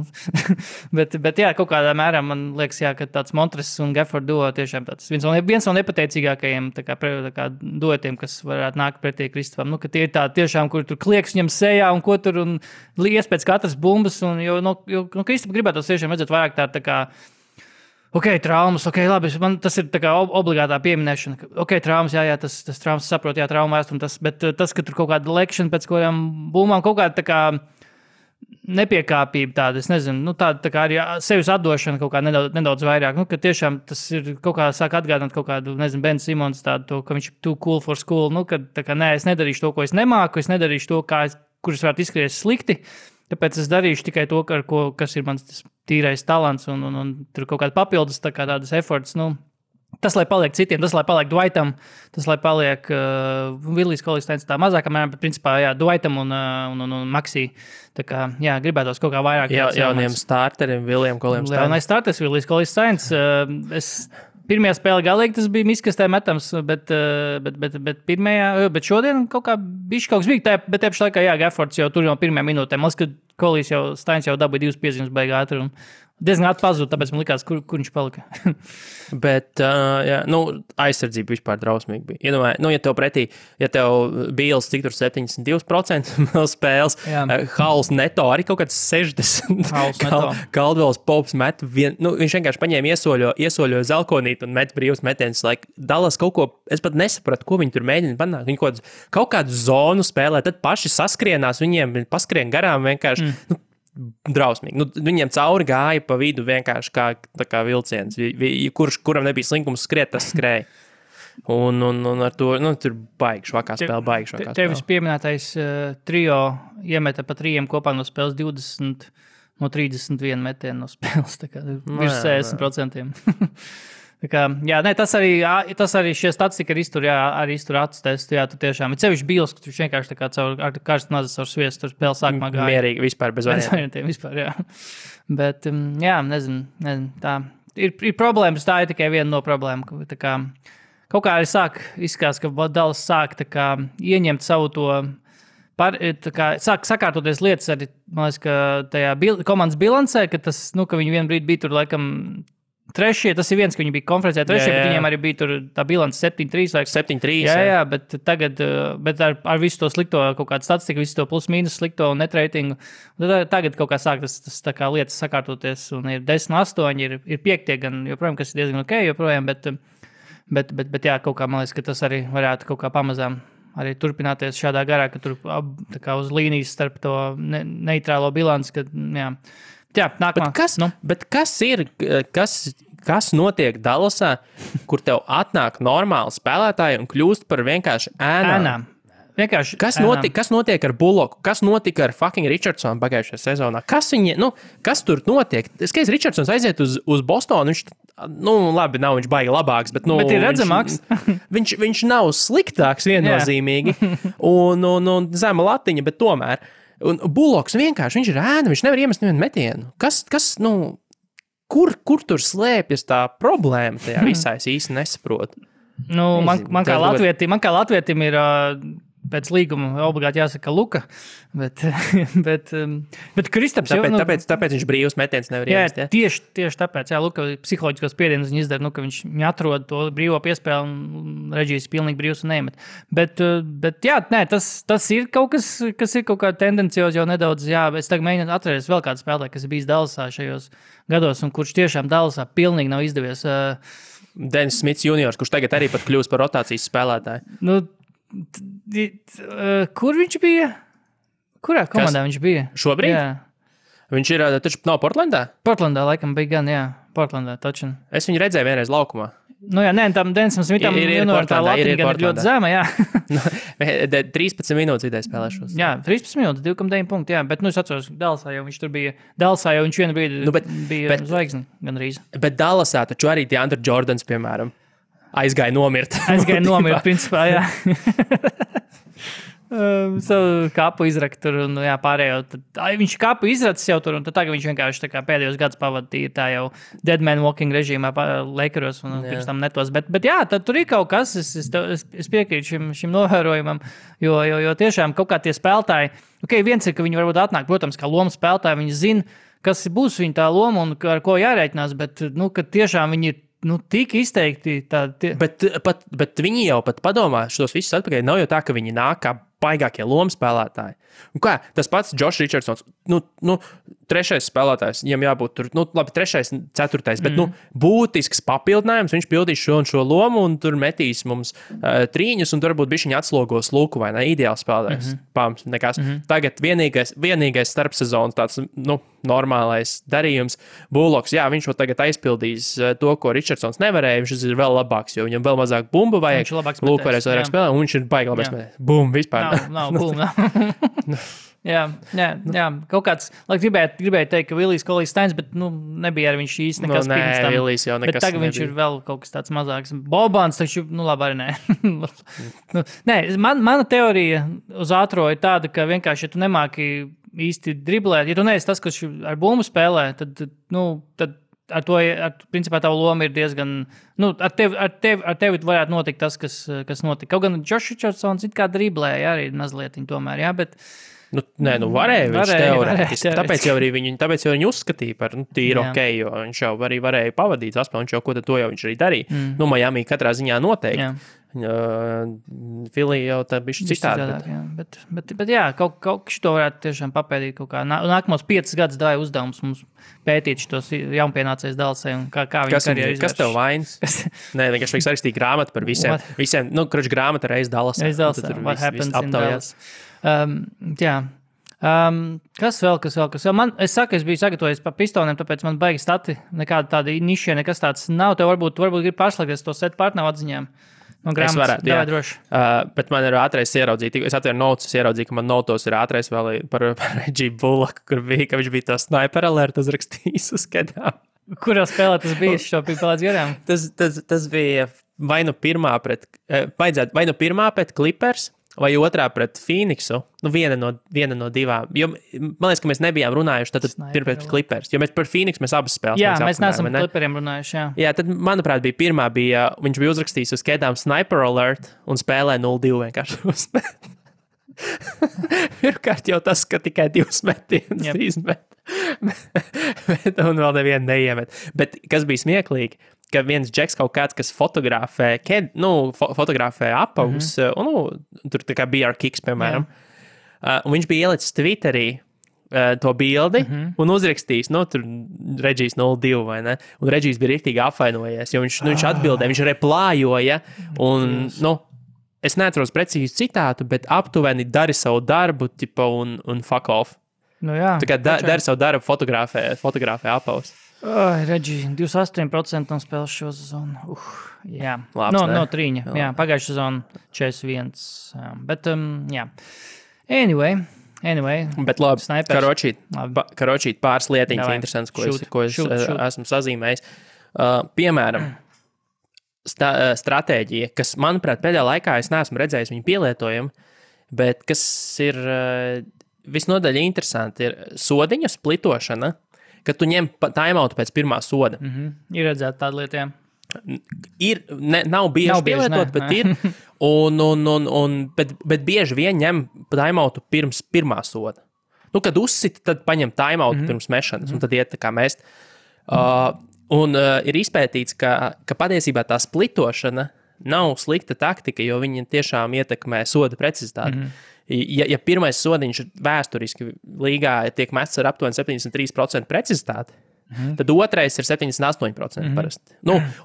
Speaker 3: bet kaut kādā mērā man liekas, ka tāds Montres un Gafford duo tiešām tāds viens no nepateicīgākajiem tā kā duetiem, kas varētu nākt pretī Kristapam, ka tie ir tā tiešām, kur tur klieks viņam sejā un ko tur, un lies pēc katras bumbas, un jo Kristapa gribētos tiešām redzēt vairāk tā kā traumas, labi, man tas ir tā kā obligātā pieminēšana. Traumas, tas traumas saprot, traumu vēstumu, bet tas, ka tur kaut kāda lekšana pēc kādām būmām, kaut kāda tā kā nepiekāpība tāda, es nezinu, tāda tā kā arī sevis atdošana kaut kā nedaudz vairāk, ka tiešām tas ir kaut kā sāk atgādināt kaut kādu, nezinu, Ben Simons tādu, ka viņš ir too cool for school, kad tā kā es nedarīšu to, ko es nemāku, es nedarīšu to, kurus varētu izskaties slikti. Tāpēc es darīšu tikai to, kas ir mans tīrais talants un tur kaut kāda papildus tādas efforts. Tas, lai paliek citiem, tas, lai paliek Dwightam, tas, lai paliek Willijs Kolīsteins tā mazākā mērā, bet principā, Dwightam un Maxī. Tā kā, gribētos kaut kā vairāk.
Speaker 2: Jauniem starteriem, Willijam Kolīsteinim.
Speaker 3: Jaunais starters, Willijs Kolīsteins. Pirmajā spēlē galīgi tas bija miskastē metams, bet šodien kaut kā bišķi kaut kas bija. Bet tieši laikā, Gaffords jau tur no pirmajā minūtē. Man liekas, ka Kolīs Steins jau dabūja 2 piezīmes beigā ātri. Diezgan atpazūd, tāpēc man likās, kur viņš palika.
Speaker 2: Bet, aizsardzība vispār drausmīgi bija. Iedomājies, ja tev pretī, Bīls cik tur 72% no spēles, Hauls neto arī kaut kāds 60%. Caldwells Pops met, viņš vienkārši paņēma iesoļoja zelkonīt un met brīvus metienus. Dallas kaut ko, es pat nesapratu, ko viņi tur mēģina panākt. Viņi kaut kādu zonu spēlē, tad paši saskrienās, viņiem paskrien garām vienkārši. drausmīgi. Nu, viņiem cauri gāja pa vidu vienkārši kā vilciens. Kuram nebija slinkums skriet, tas skrēja. Un ar to, tur baigi švakā spēle.
Speaker 3: Tevis pieminētais trio iemeta pa 3 kopā no spēles 20 no 31 metienu no spēles. Tā kā virs 60%. Tas arī šie statistika arī iztur acu testu. Jā, tu tiešām. Ir sevišķi bīls, ka tu vienkārši tā kā ar karstu nazas ar sviestu tur spēle sākumā gāja.
Speaker 2: Mierīgi, vispār bez
Speaker 3: variantiem. Vispār, jā. Bet, nezinu, tā. Ir problēmas, tā ir tikai viena no problēmām. Tā kā kaut kā arī izskatās, ka Dallas sāk tā kā ieņemt savu to, sāk sakārtoties lietas arī, man liekas, ka tajā komandas bilancē, ka tas, ka viņi vienu brīdi bija tur, laikam, trešie, tas ir viens, ka viņi bija konferencē trešie, bet viņiem arī bija tur tā bilance 7-3.
Speaker 2: 7-3.
Speaker 3: Jā, bet tagad, ar visu to slikto kaut kādu statistiku, visu to plus-mínus slikto un net ratingu, tagad kaut kā sāk tas tā kā lietas sakārtoties, un ir 10-8, ir 5 gan, joprojām, kas ir diezgan ok, joprojām, bet jā, kaut kā, man liekas, ka tas arī varētu kaut kā pamazām arī turpināties šādā garā, ka tur tā kā uz līnijas starp to neitrālo bilanci, ka, jā. Jā, nākamā.
Speaker 2: Bet kas notiek Dallasā, kur tev atnāk normāli spēlētāji un kļūst par vienkārši ēnām? Kas notiek ar Bullocku? Kas notika ar fucking Richardsonu pagājušajā sezonā? Kas tur notiek? Skaidrs, Richardsons aiziet uz Bostonu, viņš, labi, nav viņš baigi labāks, bet
Speaker 3: ir redzamāks.
Speaker 2: viņš nav sliktāks viennozīmīgi un zema latiņa, bet tomēr. Un Bullocks vienkārši, viņš ir ēna, viņš nevar iemest nevienu metienu. Kur tur slēpjas tā problēma tajā visā, es īsti nesaprotu.
Speaker 3: Man kā latvietim ir pēc līguma obligāti jāsaka Luka, bet Kristaps jau...
Speaker 2: Tāpēc viņš brīvs metiens nevar iemest,
Speaker 3: jā? Tieši tāpēc, Luka psiholoģiskos spiedienus viņa izdara, ka viņš atrod to brīvo piespēli un Reģijs pilnīgi brīvs un neiemet. Bet tas ir kaut kas ir kaut kā tendencios jau nedaudz, es tagad mēģinu atcerēties vēl kādu spēlētāju, kas ir bijis Dallasā šajos gados un kurš tiešām Dallasā pilnīgi nav izdevies.
Speaker 2: Dennis Smits juniors, kurš tagad arī pat kļūst par rotācijas spēlētāju.
Speaker 3: Kur viņš bija? Kurā komandā viņš bija?
Speaker 2: Šobrīd?
Speaker 3: Jā.
Speaker 2: Viņš ir taču nav Portlandā?
Speaker 3: Portlandā laikam bija gan, jā. Portlandā taču.
Speaker 2: Es viņu redzēju vienreiz laukumā.
Speaker 3: Tam Denisam Smitam tā latiņa gan ir ļoti zema, jā.
Speaker 2: 13 minūtes vidēji spēlēšos.
Speaker 3: Jā, 13 minūtes, 2,9 punkti, jā. Bet, es atceros, Dallasā jau viņš tur bija. Dallasā jau viņš vienu brīdi bija zvaigzni gan rīz.
Speaker 2: Bet Dallasā taču arī DeAndre Jordans, piemēram, aizgāja nomirt,
Speaker 3: principā, jā. Savu kapu izrakt tur un pārējo. Viņš kapu izracis jau tur un tad tagad viņš vienkārši tā kā pēdējos gadus pavadīja tā jau dead man walking režīmā Lakeros un pirms tam netos. Bet jā, tad tur ir kaut kas, es piekrītu šim novērojumam, jo tiešām kaut kā tie spēlētāji, viens ir, ka viņi varbūt atnāk, protams, kā loma spēlētāji, viņi zina, kas būs viņa tā loma un ar ko jārēķinās, bet, ka tiešām viņi ir tik izteikti tādi.
Speaker 2: Bet viņi jau pat padomā šos visus atpakaļ. Nav jau tā, ka viņi nāk kā baigākie lomu spēlētāji. Un kā, tas pats Josh Richardsons, trešais spēlētājs, viņam jābūt tur, labi, trešais, ceturtais, bet, būtisks papildinājums, viņš pildīs šo un šo lomu un tur metīs mums trīņus un tur varbūt bišķiņi atslogos Luku vai ne, ideāls spēlētājs, pams, nekas. Tagad vienīgais starpsezonas tāds, normālais darījums, Bullocks, jā, viņš vēl tagad aizpildīs to, ko Richardsons nevarēja, viņš ir vēl labāks, jo viņam vēl mazāk bumbu vajag, Luku varēs vairāk spēlēt, un viņš ir baigi labāks metējs. Bum, vispār.
Speaker 3: Nav bum, Jā, kaut kāds, gribēju teikt, ka Villijs Kolijs Steins, bet, nebija arī viņš īsti nekas pirms tam.
Speaker 2: Villijs jau nekas
Speaker 3: bet tagad viņš ir vēl kaut kas tāds mazāks. Bobans, taču, labi, arī nē. Nē, mana teorija uz ātro ir tāda, ka vienkārši, ja tu nemāki īsti driblēt, ja tu neesi tas, kas ar bumbu spēlē, tad principā tā loma ir diezgan, ar tevi varētu notikt tas, kas notika. Kaut gan Josh Richardsons it kā driblēja arī mazliet tomēr, jā, bet
Speaker 2: varēja viņš teorētiski. Tāpēc jau viņi uzskatīja par tīru ok, jo viņš jau arī varēja pavadīt saspēli, viņš jau ko tad to jau viņš arī darīja. Miami katrā ziņā noteikti. Filija jau tā bišķi citādi.
Speaker 3: Bet jā, kaut šito varētu tiešām papēdīt kaut kā. Nākamos 5 gadus dāja uzdevums mums pētīt šitos jaunpienācējus Dallasai un kā viņi karjeru izvērš.
Speaker 2: Kas tev vainas? Nē, vienkārši vajag sarakstīt grāmatu par visiem. Grāmata reiz Dallasā.
Speaker 3: What happens in Dallas. Jā. Kas vēl? Es biju sagatavojis par pistoniem, tāpēc man baigi stati. Nekāda tāda niša, nekas tāds nav. Tev varbūt grib pārslēgties to set partneru atziņām. No grāmatas.
Speaker 2: Es varētu, jā.
Speaker 3: Droši.
Speaker 2: Bet man ir ātrais ieraudzīt. Es atveru notes, ieraudzīju, ka man notos ir ātrais vēl par Reggie Bullaku, kur bija, ka viņš bija to sniper alert uzrakstījis uz kedām.
Speaker 3: Kurā spēlē tas bija? Šo bija pēc garām?
Speaker 2: Tas bija vai nu pirmā pret Clippers, vai otrā pret Phoenixu, viena no divām. Jo, man liekas, ka mēs nebijām runājuši tad pret Clippers, jo mēs par Phoenixu mēs abas spēles.
Speaker 3: Jā, mēs neesam par Clipperiem runājuši, jā.
Speaker 2: Jā, tad, manuprāt, viņš bija uzrakstījis uz kedām sniper alert un spēlē 0-2 vienkārši uzspēlē. Pirmkārt jau tas, ka tikai 2 metienus izmet. Un vēl nevienu neiemet. Bet kas bija smieklīgi, ka viens džeks kaut kāds, kas fotografē apavus, tur tā kā BR Kicks, piemēram, un viņš bija ielicis Twitterī to bildi un uzrakstījis, tur Regijs 0-2, vai ne? Un Regijs bija riktīgi apvainojies, jo viņš atbildēja, viņš replājoja, un, es neatceros precīzi citātu, bet aptuveni dari savu darbu, un fuck off.
Speaker 3: Jā.
Speaker 2: Tā kā dari savu darbu, fotografē apavus.
Speaker 3: Regī, 28% no spēles šo sezonu. Jā,
Speaker 2: Labs,
Speaker 3: no 3. Jā, pagājušā sezona 41. Bet, jā. Anyway.
Speaker 2: Bet labi, karočīt pāris lietiņas interesants, ko es esmu sazīmējis. Piemēram, stratēģija, kas, manuprāt, pēdējā laikā es neesmu redzējis viņu pielietojumu, bet kas ir visnodaļ interesanti, ir sodiņu splitošana, kad tu ņem timeoutu pēc pirmā soda.
Speaker 3: Ir redzēta tāda lieta, jā.
Speaker 2: Nav bieži pielietot, bet ir. Bet bieži vien ņem timeoutu pirms pirmā soda. Kad uzsita, tad paņem timeoutu pirms mešanas, un tad iet tā kā mest. Ir izpētīts, ka patiesībā tā splitošana nav slikta taktika, jo viņa tiešām ietekmē soda precizitāti. Ja pirmais sodiņš vēsturiski līgā tiek mests ar aptuveni 73% precizitāti, tad otrais ir 78% parasti.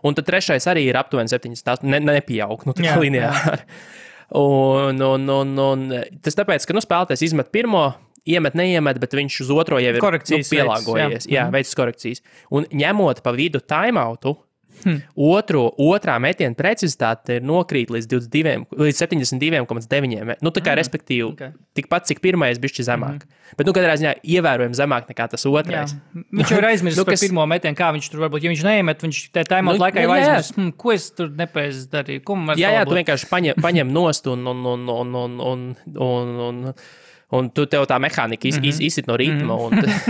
Speaker 2: Un tad trešais arī ir aptuveni 78%, nepieaug, tā kā lineāri. Un tas tāpēc, ka spēlētājs izmet pirmo, iemet, neiemet, bet viņš uz otro jau ir pielāgojies. Jā, veids korekcijas. Un ņemot pa vidu timeoutu, otrā metiena precizitāte ir nokrīt līdz 72,9. Tā kā respektīvi tikpat, cik pirmais bišķi zemāk. Bet, katrā ziņā ievērojami zemāk nekā tas otrais.
Speaker 3: Viņš jau ir aizmirsis par pirmo metienu, kā viņš tur varbūt, ja viņš neiemet, viņš te timeout laikā jau aizmirsis, ko es tur nepreiz darīju.
Speaker 2: Jā, tu vienkārši paņem nost un tev tā mehānika izsit no ritma.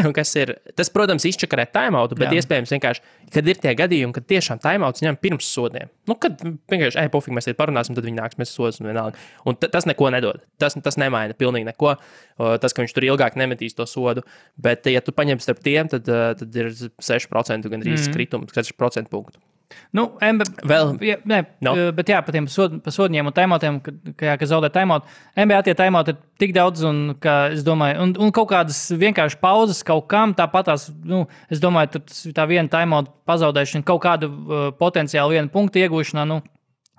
Speaker 2: Un kas ir, tas, protams, izčakarē timeoutu, bet iespējams vienkārši, kad ir tie gadījumi, kad tiešām timeouts ņem pirms sodiem. Kad vienkārši, pofīgi, mēs parunāsim, tad viņi nāks, mēs sodas un vienalga. Un tas neko nedod. Tas nemaina pilnīgi neko. Tas, ka viņš tur ilgāk nemetīs to sodu. Bet, ja tu paņem starp tiem, tad ir 6% gandrīz skritums, 6% punktu.
Speaker 3: Bet jā, par tiem sodņiem un timeoutiem, ka zaudē timeout. NBA tie timeout ir tik daudz, un es domāju, un kaut kādas vienkārši pauzes kaut kam, tāpatās, es domāju, tā viena timeout pazaudēšana, kaut kādu potenciāli vienu punktu iegūšanā,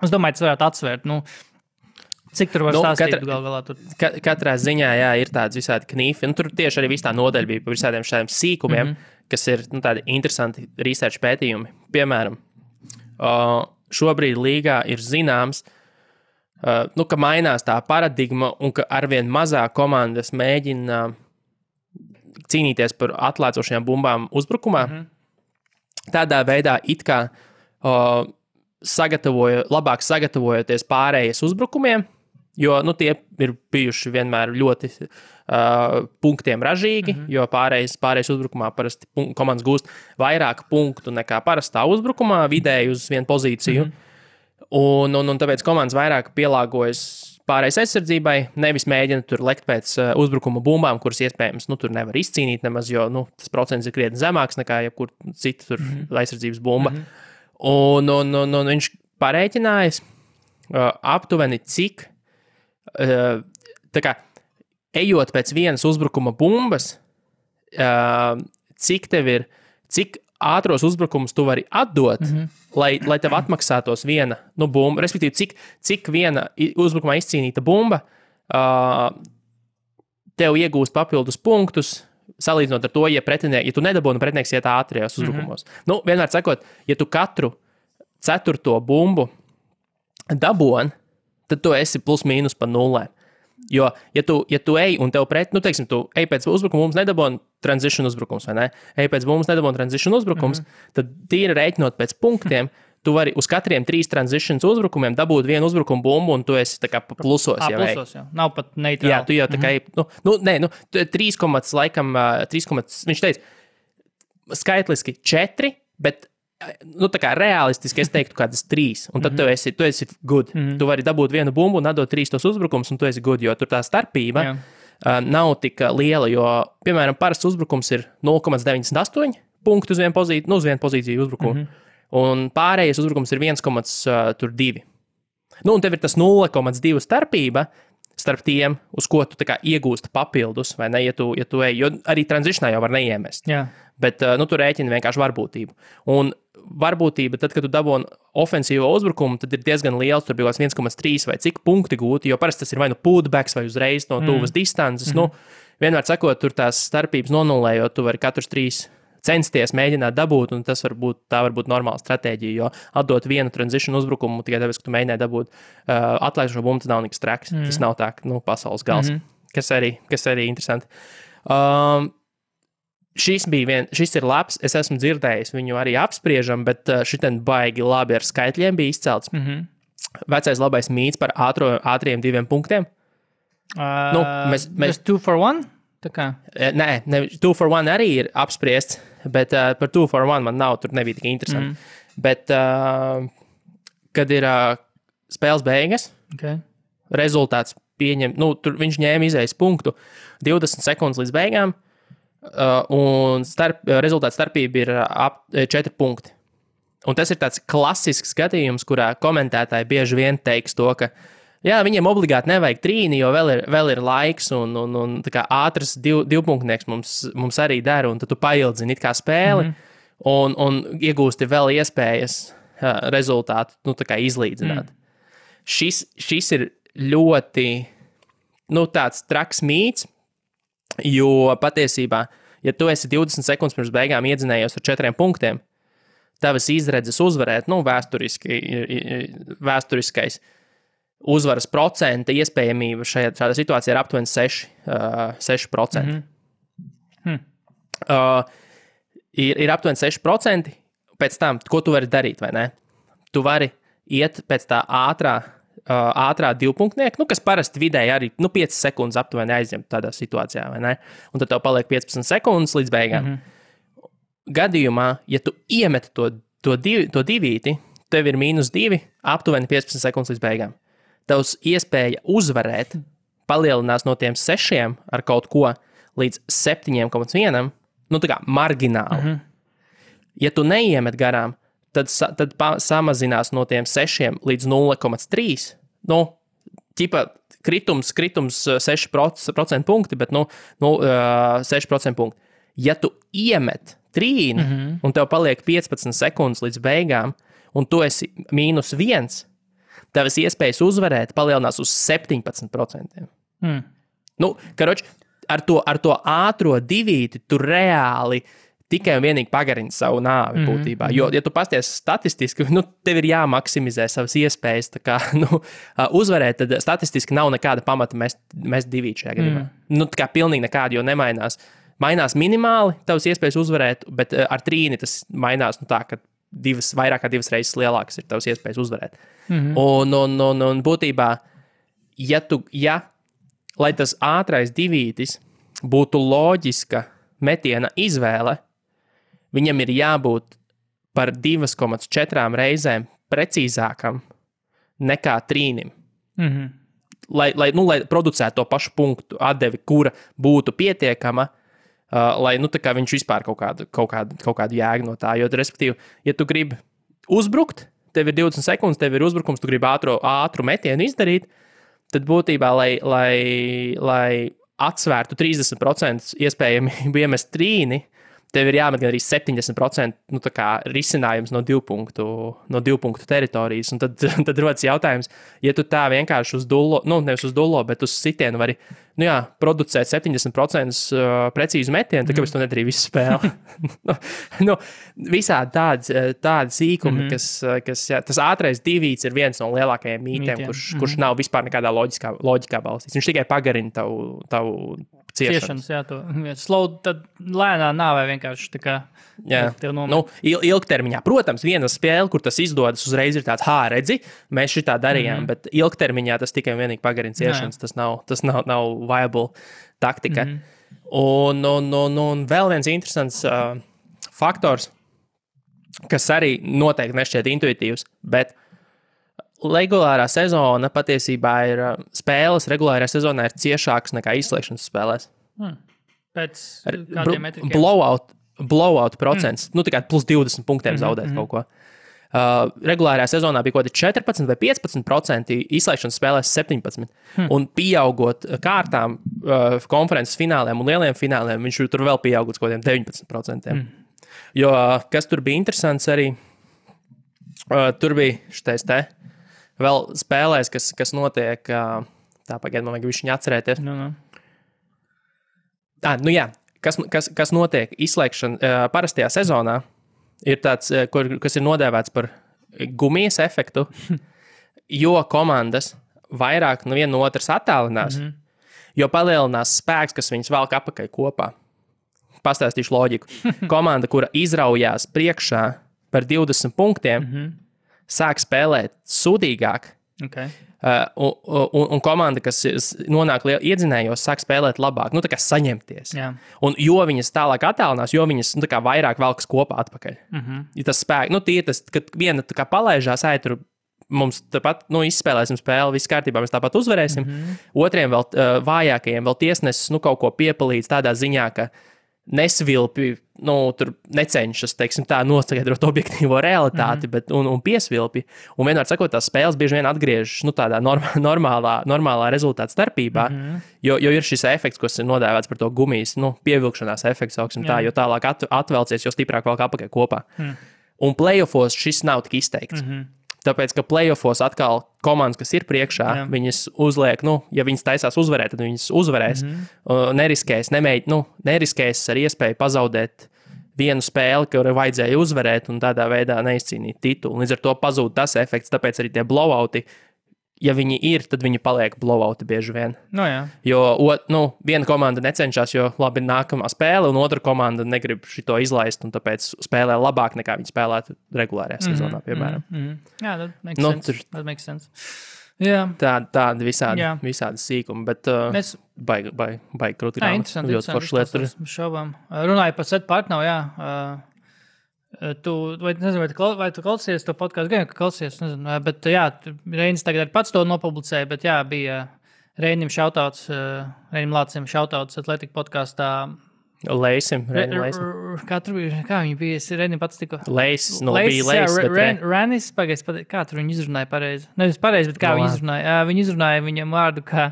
Speaker 3: es domāju, tas varētu atsvērt, Cik tur var stāstīt galā?
Speaker 2: Katrā ziņā, jā, ir tāds visādi knifi, tur tieši arī viss tā nodaļa bija par visādiem šādiem sīkumiem, kas ir, tādi interesanti research pētījumi. Piemēram, šobrīd līgā ir zināms, ka mainās tā paradigma un ka arvien mazāk komandas mēģina cīnīties par atlēcošajām bumbām uzbrukumā. Tādā veidā it kā labāk sagatavojoties pārējas uzbrukumiem, jo tie ir bijuši vienmēr ļoti punktiem ražīgi, jo pārējais uzbrukumā parasti komandas gūst vairāk punktu nekā parastā uzbrukumā, vidēji uz vienu pozīciju. Un tāpēc komandas vairāk pielāgojas pārējais aizsardzībai, nevis mēģina tur lekt pēc uzbrukuma bumbām, kuras iespējams tur nevar izcīnīt nemaz, jo tas procents ir krietni zemāks nekā jebkur cita aizsardzības bumba. Un viņš parēķinājis aptuveni cik tā kā ejot pēc vienas uzbrukuma bumbas, cik ātros uzbrukumus tu vari atdot, lai tev atmaksātos viena bumba, respektīvi, cik viena uzbrukumā izcīnīta bumba tev iegūst papildus punktus, salīdzinot ar to, ja tu nedabūni pretinieks iet ātrijos uzbrukumos. Nu, vienmēr sakot, ja tu katru 4. bumbu dabūni, tad tu esi plus mīnus pa 0. Jo, ja tu ej un tev teiksim, tu ej pēc uzbrukuma, mums nedabūni transition uzbrukums, vai ne? Ej pēc mums nedabūni transition uzbrukums, tad tīri rēķinot pēc punktiem, tu vari uz katriem 3 transitions uzbrukumiem dabūt vienu uzbrukumu bumbu, un tu esi tā kā plusos.
Speaker 3: Plusos, jā. Nav pat neitrāli.
Speaker 2: Jā, tu jau tā kā, 3, laikam, viņš teica, skaitliski 4, bet, tā kā realistiski es teiktu kādas 3, un tad tu esi good. Tu vari dabūt vienu bumbu un atdot 3 tos uzbrukums, un tu esi good, jo tur tā starpība nav tik liela, jo, piemēram, parasts uzbrukums ir 0,98 punktu uz vienu pozīciju uzbrukumu. Un pārējais uzbrukums ir 1,2. Un tev ir tas 0,2 starpība starp tiem, uz ko tu tā kā iegūsti papildus, vai ne, ja tu ej, jo arī transitionā jau var neiemest.
Speaker 3: Jā.
Speaker 2: Bet tu rēķini vienkārši varbūtību. Un varbūtība, tad, kad tu dabūni ofensīvo uzbrukumu, tad ir diezgan liels, tur bija 1,3 vai cik punkti gūti, jo parasti tas ir vai nu putbacks vai uzreiz no tuvas distances. Vienmēr sakot, tur tās starpības nonulējot, tu vari katrus 3 censties mēģināt dabūt, un tā var būt normāla stratēģija, jo atdot vienu transition uzbrukumu tikai tāpēc, ka tu mēģināji dabūt atlaižošo bumbu, tas nav nekas traks. Tas nav tā, pasaules gals, kas arī interesanti. Šis ir labs, es esmu dzirdējis, viņu arī apspriežam, bet šitien baigi labi ar skaitļiem bija izcelts. Vecais labais mīts par ātriem 2 punktiem.
Speaker 3: Mēs 2 for 1?
Speaker 2: Nē, 2 for 1 arī ir apspriests, bet par 2 for 1 man nav, tur nebija tik interesanti. Bet, kad ir spēles beigas, rezultāts pieņem, tur viņš ņēma izējas punktu 20 sekundes līdz beigām, un rezultāts starpība ir ap 4 punkti. Un tas ir tāds klasisks gadījums, kurā komentētāji bieži vien teiks to, ka jā, viņiem obligāti nevajag trīni, jo vēl ir laiks, un tā kā ātrs divpunktnieks mums arī dara, un tad tu paildzini it kā spēli, un iegūsti vēl iespējas rezultātu, tā kā izlīdzināt. Šis ir ļoti, tāds traks mīts, jo patiesībā, ja tu esi 20 sekundes pirms beigām iedzinējies ar 4 punktiem, tavas izredzes uzvarēt, vēsturiskais uzvaras procenta iespējamība šādā situācijā ir aptuveni 6%. Ir aptuveni 6%, pēc tam, ko tu vari darīt, vai ne? Tu vari iet pēc tā ātrā divpunktnieka, kas parasti vidēji arī 5 sekundes aptuveni aizņem tādā situācijā, vai ne? Un tad tev paliek 15 sekundes līdz beigām. Gadījumā, ja tu iemet to divīti, tev ir -2, aptuveni 15 sekundes līdz beigām. Tavs iespēja uzvarēt palielinās no tiem 6 ar kaut ko līdz 7,1, tā kā margināli. Ja tu neiemet garām, tad samazinās no tiem 6 līdz 0,3. Kritums 6% punkti, bet 6% punkti. Ja tu iemet trīni, un tev paliek 15 sekundes līdz beigām, un tu esi -1, tavas iespējas uzvarēt palielinās uz 17%. Karoči, ar to ātro divīti tu reāli tikai un vienīgi pagarini savu nāvi būtībā. Jo, ja tu pasties statistiski, tev ir jāmaksimizē savas iespējas uzvarēt, tad statistiski nav nekāda pamata mest divīti šajā gadījumā. Tā kā pilnīgi nekāda, jo nemainās. Mainās minimāli tavas iespējas uzvarēt, bet ar trīni tas mainās tā, ka vairāk kā 2 reizes lielākas ir tavas iespējas uzvarēt. Un būtībā, lai tas ātrais divītis būtu loģiska metiena izvēle, viņam ir jābūt par 2,4 reizēm precīzākam nekā trīnim. Lai producētu to pašu punktu atdevi, kura būtu pietiekama, lai viņš vispār kaut kādu jēgu no tā. Jo, respektīvi, ja tu gribi uzbrukt, tev ir 20 sekundes, tev ir uzbrukums, tu gribi ātru metienu izdarīt, tad būtībā, lai atsvērtu 30% iespējamību iemest trīni, tev ir jāmet gan arī 70% nu, risinājums no 2 punktu teritorijas. Un tad rodas jautājums, ja tu tā vienkārši uz dullo, nu, nevis uz dullo, bet uz sitienu vari producēt 70% precīzu metienu, tad kāpēc tu nedarīji visu spēli? Visādi tādi sīkumi, kas tas ātrais divīts ir viens no lielākajiem mītiem, kurš nav vispār nekādā loģikā balstīts. Viņš tikai pagarina tavu ciešanas.
Speaker 3: Jā, slow, tad lēnā nāvē vienkārši tā kā
Speaker 2: ilgtermiņā. Protams, viena spēle, kur tas izdodas, uzreiz ir tāds, redzi, mēs šitā darījām, bet ilgtermiņā tas tikai vienīgi pagarina ciešanas. Tas nav viable taktika. Un vēl viens interesants faktors, kas arī noteikti nešķiet intuitīvs, bet regulārā sezona patiesībā ir spēles regulārā sezonā ir ciešākas nekā izslēgšanas spēlēs.
Speaker 3: Pēc kādiem metrikiem?
Speaker 2: Blowout procents. Tikai plus 20 punktiem zaudēt kaut ko. Regulārā sezonā bija kaut kādi 14 vai 15%, izslēgšanas spēlēs 17%. Un pieaugot kārtām konferences fināliem un lieliem fināliem, viņš tur vēl pieaugot kaut kādiem 19%. Jo kas tur bija interesants arī, tur bija šitais vēl spēlēs, kas notiek, pagaid, man vajag viņu atcerēties. Kas notiek izslēgšana parastajā sezonā, ir tāds, kas ir nodēvēts par gumijas efektu, jo komandas vairāk no viena no otras attālinās, jo palielinās spēks, kas viņus velk apakaļ kopā. Pastāstīšu loģiku. Komanda, kura izraujās priekšā par 20 punktiem, sāk spēlēt sūdīgāk.
Speaker 3: Okay.
Speaker 2: Un komanda, kas nonāk iedzinējos, sāk spēlēt labāk, tā kā saņemties.
Speaker 3: Jā.
Speaker 2: Un jo viņas tālāk attālinās, jo viņas vairāk velkas kopā atpakaļ. Ja tas spēks, tas, kad viena palaižās, tur mums tāpat izspēlēsim spēli, viss kārtībā, mēs tāpat uzvarēsim. Otriem vēl vājākajiem vēl tiesnesis kaut ko piepalīdz tādā ziņā, ka nesvilpi, tur necenšas, teiksim tā, noskaidrot objektīvo realitāti, bet, un piesvilpi. Un vienmēr sakot, tās spēles bieži vien atgriežas, tādā normālā rezultāta starpībā, jo ir šis efekts, kas ir nodēvēts par to gumijas, pievilkšanās efekts, jo tālāk atvelcies, jo stiprāk vēl apakaļ kopā. Un playoffos šis nav tik izteikts. Tāpēc, ka playoffos atkal komandas, kas ir priekšā, viņas uzliek, ja viņas taisās uzvarēt, tad viņas uzvarēs. Neriskēs ar iespēju pazaudēt vienu spēli, kuru vajadzēja uzvarēt un tādā veidā neizcīnīt titulu. Līdz ar to pazūd tas efekts, tāpēc arī tie blowouti, ja viņi ir, tad viņi paliek blowouti bieži vien. Jo viena komanda necenšas, jo labi nākamā spēle, un otra komanda negrib šito izlaist, un tāpēc spēlē labāk nekā viņi spēlētu regulārajā sezonā, piemēram.
Speaker 3: Jā, that makes sense. Jā.
Speaker 2: Tādi visādi sīkumi, bet baigi krūti grāmatas.
Speaker 3: Interesanti lietas. Šaubām. Runāju par Set Partnovu, jā. Vai tu klausies to podcastu? Gan, ka klausies, nezinu, bet jā, Reinis tagad pats to nopublicēja, bet jā, bija Reinim šautauts, Reinim Lācim šautauts Atletika podkastā.
Speaker 2: Leisim.
Speaker 3: Kā viņi bija? Reinim pats tikko.
Speaker 2: Leisis, bija Leisis, bet
Speaker 3: Ranis, kā tur viņi izrunāja pareizi? Nevis pareizi, bet kā viņi izrunāja? Viņi izrunāja viņam vārdu, kā...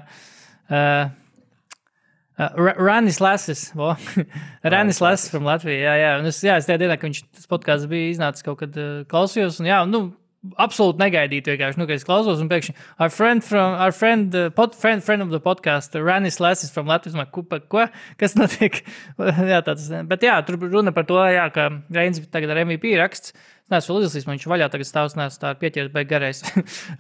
Speaker 3: Ranis Lasis, Ranis Lasis from Latvija, jā. Un es tajā dienā, ka tas podcasts bija iznācis kaut kad klausījos, un absolūti negaidītu vienkārši, ka es klausos, un pēkšņi our friend of the podcast, Ranis Lasis from Latvijas, ko? Kas notiek? Jā, bet jā, tur runa par to, jā, ka Reinis tagad ar MVP raksts, es vēl izlasījis, man viņš vaļā tagad stāvs, tā ir pieķeris beig garais.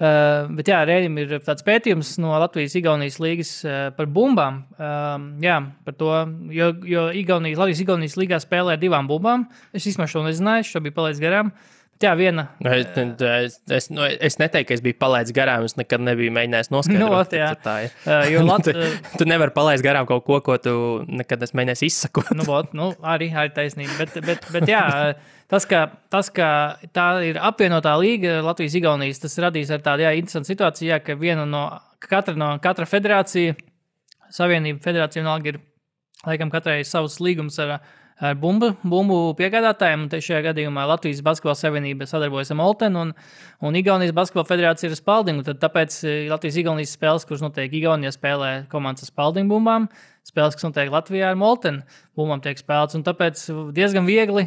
Speaker 3: Bet jā, Reinim ir tāds pētījums no Latvijas-Igaunijas līgas par bumbām. Jā, par to, jo Latvijas-Igaunijas līgā spēlē ar 2 bumbām. Es vismaz šo nezināju, šo bija palaidis garām. Bet jā, viena...
Speaker 2: Es neteiktu, ka es biju palaidis garām, es nekad nebiju mēģinājis noskaidrot. Tu nevari palaist garām kaut ko tu nekad esi mēģinājis izsakot.
Speaker 3: Arī taisnība. Bet jā, tas, ka tā ir apvienotā līga Latvijas-Igaunijas, tas radīs ar tādu interesantu situāciju, ka katra federācija, savienība federācija vienalga ir, laikam, katrai savs līgums ar bumbu piegādātājiem, un šajā gadījumā Latvijas basketbola savienība sadarbojas ar Moltenu un Igaunijas basketbola federācija ir ar Spaldingu, tad tāpēc Latvijas-Igaunijas spēles, kuras notiek Igaunijā, spēlē komandas ar Spaldingu bumbām, spēles, kas notiek Latvijā ar Molteni, bumbām tiek spēlēts. Un tāpēc diezgan viegli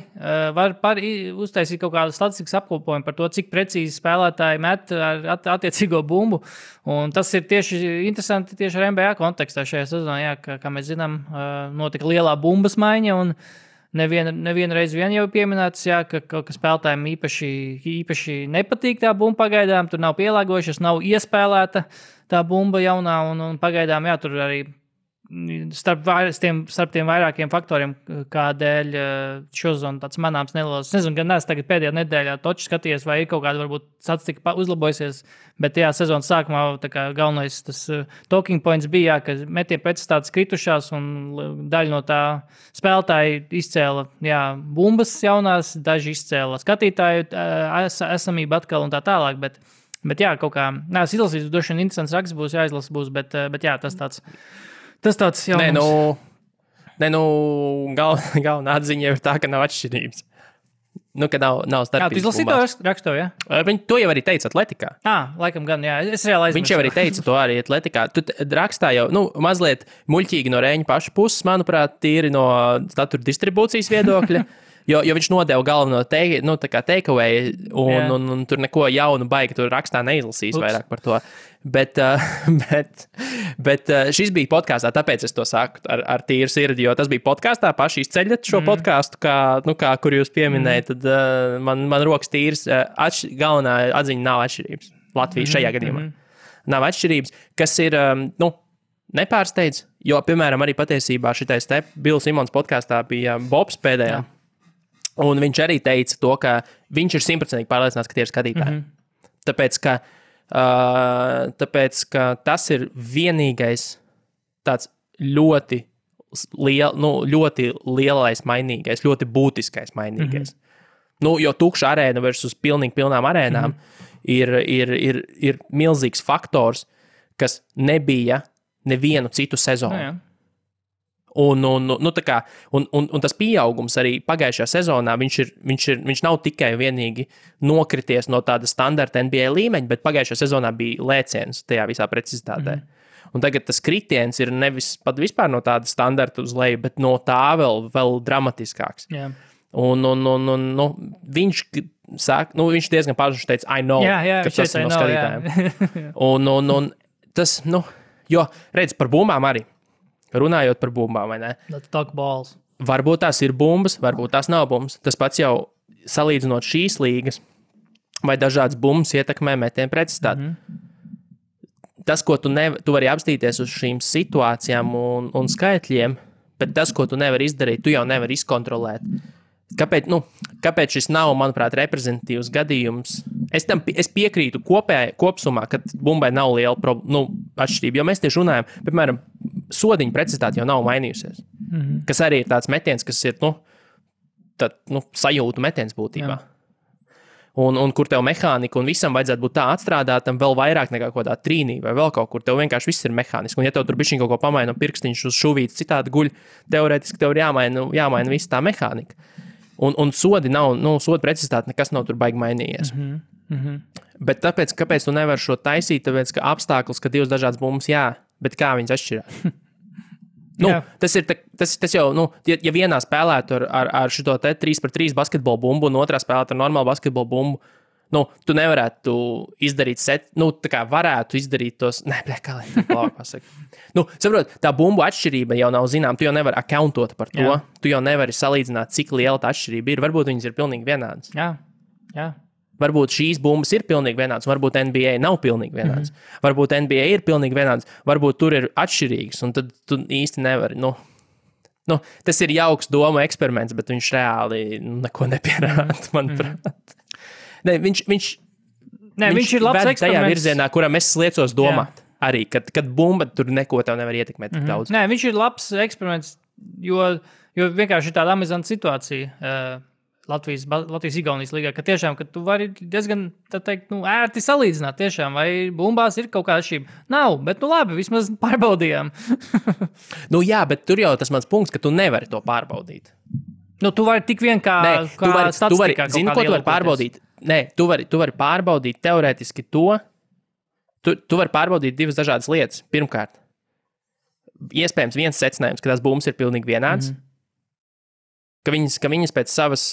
Speaker 3: var uztaisīt kaut kādu statistikas apkopojumu par to, cik precīzi spēlētāji met ar attiecīgo bumbu. Un tas ir tieši interesanti tieši ar NBA kontekstā šajā sezonā. Jā, kā mēs zinām, notika lielā bumbas maiņa un nevienu reizi vien jau pieminēts, jā, ka spēlētājiem īpaši nepatīk tā bumba pagaidām. Tur nav pielāgojušies, nav iespēlēta tā bumba jaunā un pagaidām, jā, tur arī starp tiem vairākiem faktoriem, kādēļ šozon tāds manāms nelielas. Es nezinu, gan es tagad pēdējā nedēļā toču skaties, vai ir kaut kāda varbūt statistika uzlabojusies, bet jā, sezonas sākumā tā kā galvenais tas talking points bija, jā, ka metienu pretstātas kritušās un daļa no tā spēlētāji izcēla, jā, bumbas jaunās, daži izcēla skatītāju esamību atkal un tā tālāk, bet jā, kaut kā, es izlasīju, droši vien interesants raksts būs, jāizlasa būs, bet jā, tas tāds jaunums.
Speaker 2: Galvenā atziņa ir tā, ka nav atšķirības. Ka nav starpības.
Speaker 3: Jā, tu izlasīji to rakstu, jā?
Speaker 2: Viņi to jau arī teica atletikā.
Speaker 3: Laikam gan, jā. Es reāli aizmirsu.
Speaker 2: Viņš jau arī teica to arī atletikā. Tu rakstā jau, mazliet muļķīgi no Rēņa paša puses, manuprāt, tīri no statura distribūcijas viedokļa. Jo viņš nodeva galveno takeaway, un tur neko jaunu baigi tur rakstā neizlasīs vairāk par to. Bet šis bija podkāstā, tāpēc es to saku ar tīru sirdi, jo tas bija podkāstā, paši izceļat šo podkāstu, kur jūs pieminējat, tad man rokas tīrs, galvenā atziņa nav atšķirības. Latvijas šajā gadījumā nav atšķirības, kas ir, nepārsteidz, jo, piemēram, arī patiesībā šitais te Bills Simons podkāstā bija Bobs pēdējā. Un viņš arī teica to, ka viņš ir 100% pārliecināts, ka tie ir skatītāji. Tāpēc, ka tas ir vienīgais tāds ļoti lielais mainīgais, ļoti būtiskais mainīgais. Jo tukša arēna versus pilnām arēnām ir milzīgs faktors, kas nebija nevienu citu sezonu. Un tas pieaugums arī pagājušajā sezonā, viņš nav tikai vienīgi nokrities no tāda standarta NBA līmeņa, bet pagājušajā sezonā bija lēciens tajā visā precizitātē. Un tagad tas kritiens ir nevis pat vispār no tāda standarta uz leju, bet no tā vēl dramatiskāks.
Speaker 3: Yeah.
Speaker 2: Viņš sāk, viņš diezgan paši teica, I know, ka tas ir no skatītājiem. Un tas, jo, redz, par bumbām arī. Runājot par bumbām, vai ne?
Speaker 3: Let's talk balls.
Speaker 2: Varbūt tās ir bumbas, varbūt tās nav bumbas. Tas pats jau salīdzinot šīs līgas, vai dažādas bumbas ietekmē metienu precizitāti. Tas, ko tu vari apstīties uz šīm situācijām un skaitļiem, bet tas, ko tu nevari izdarīt, tu jau nevari izkontrolēt. Kāpēc šis nav, manuprāt, reprezentatīvs gadījums? Es piekrītu kopsumā, ka bumbai nav liela atšķirība, jo mēs tieši runājam, piemēram, sodiņa precizitāte jau nav mainījusies. Kas arī ir tāds metiens, kas ir sajūtu metiens būtībā. Un kur tev mehānika un visam vajadzētu būt tā atstrādātam vēl vairāk nekā kaut kādā trīnī vai vēl kaut kur. Tev vienkārši viss ir mehāniski. Un ja tev tur bišķiņ kaut ko pamaina no pirkstiņš uz šuvītes citādi guļ, teorētiski tev ir jāmaina viss tā mehānika. Un sodi nav, soda precizitāte nekas nav tur baigi mainījies. Bet kāpēc tu nevari šo taisīt? Tāpēc, ka apstākļus, ka divas dažādas bumbas, jā, bet kā viņas atšķirās? Tas jau, ja vienā spēlētu ar šito te 3-3 basketbolu bumbu un otrā spēlētu ar normālu basketbolu bumbu, tu nevarētu izdarīt tā kā varētu izdarīt tos, kā lai labāk pasaka. Saprot, tā bumbu atšķirība jau nav zinām, tu jau nevari accountot par to, tu jau nevari salīdzināt, cik liela tā atšķirība ir, varbūt viņas ir pilnīgi vienādas.
Speaker 3: Jā.
Speaker 2: Varbūt šīs bumbas ir pilnīgi vienādas, varbūt NBA nav pilnīgi vienādas. Varbūt NBA ir pilnīgi vienādas, varbūt tur ir atšķirīgas, un tad tu īsti nevari, tas ir jauks doma eksperiments, bet viņš reāli neko nepierāda, manuprāt. Viņš
Speaker 3: ir labs eksperiments.
Speaker 2: Tajā virzienā, kuram es liecos domāt. Arī, kad bumba tur neko tev nevar ietekmēt tik daudz.
Speaker 3: Nē, viņš ir labs eksperiments, jo vienkārši ir tāda amizanta situācija Latvijas-Igaunijas līgā, ka tiešām, ka tu vari diezgan, tā teikt, ērti salīdzināt tiešām, vai bumbās ir kaut kāda atšķirība. Nav, bet labi, vismaz pārbaudījām.
Speaker 2: Jā, bet tur jau tas mans punkts, ka tu nevari to pārbaudīt.
Speaker 3: Tu vari tik vien kā statistikā.
Speaker 2: Zini, ko tu vari pārbaudīt? Nē, tu vari pārbaudīt teorētiski to. Tu vari pārbaudīt divas dažādas lietas. Pirmkārt, iespējams viens secinājums, ka tās bumbas ir pilnīgi vienāds. Ka viņas pēc savas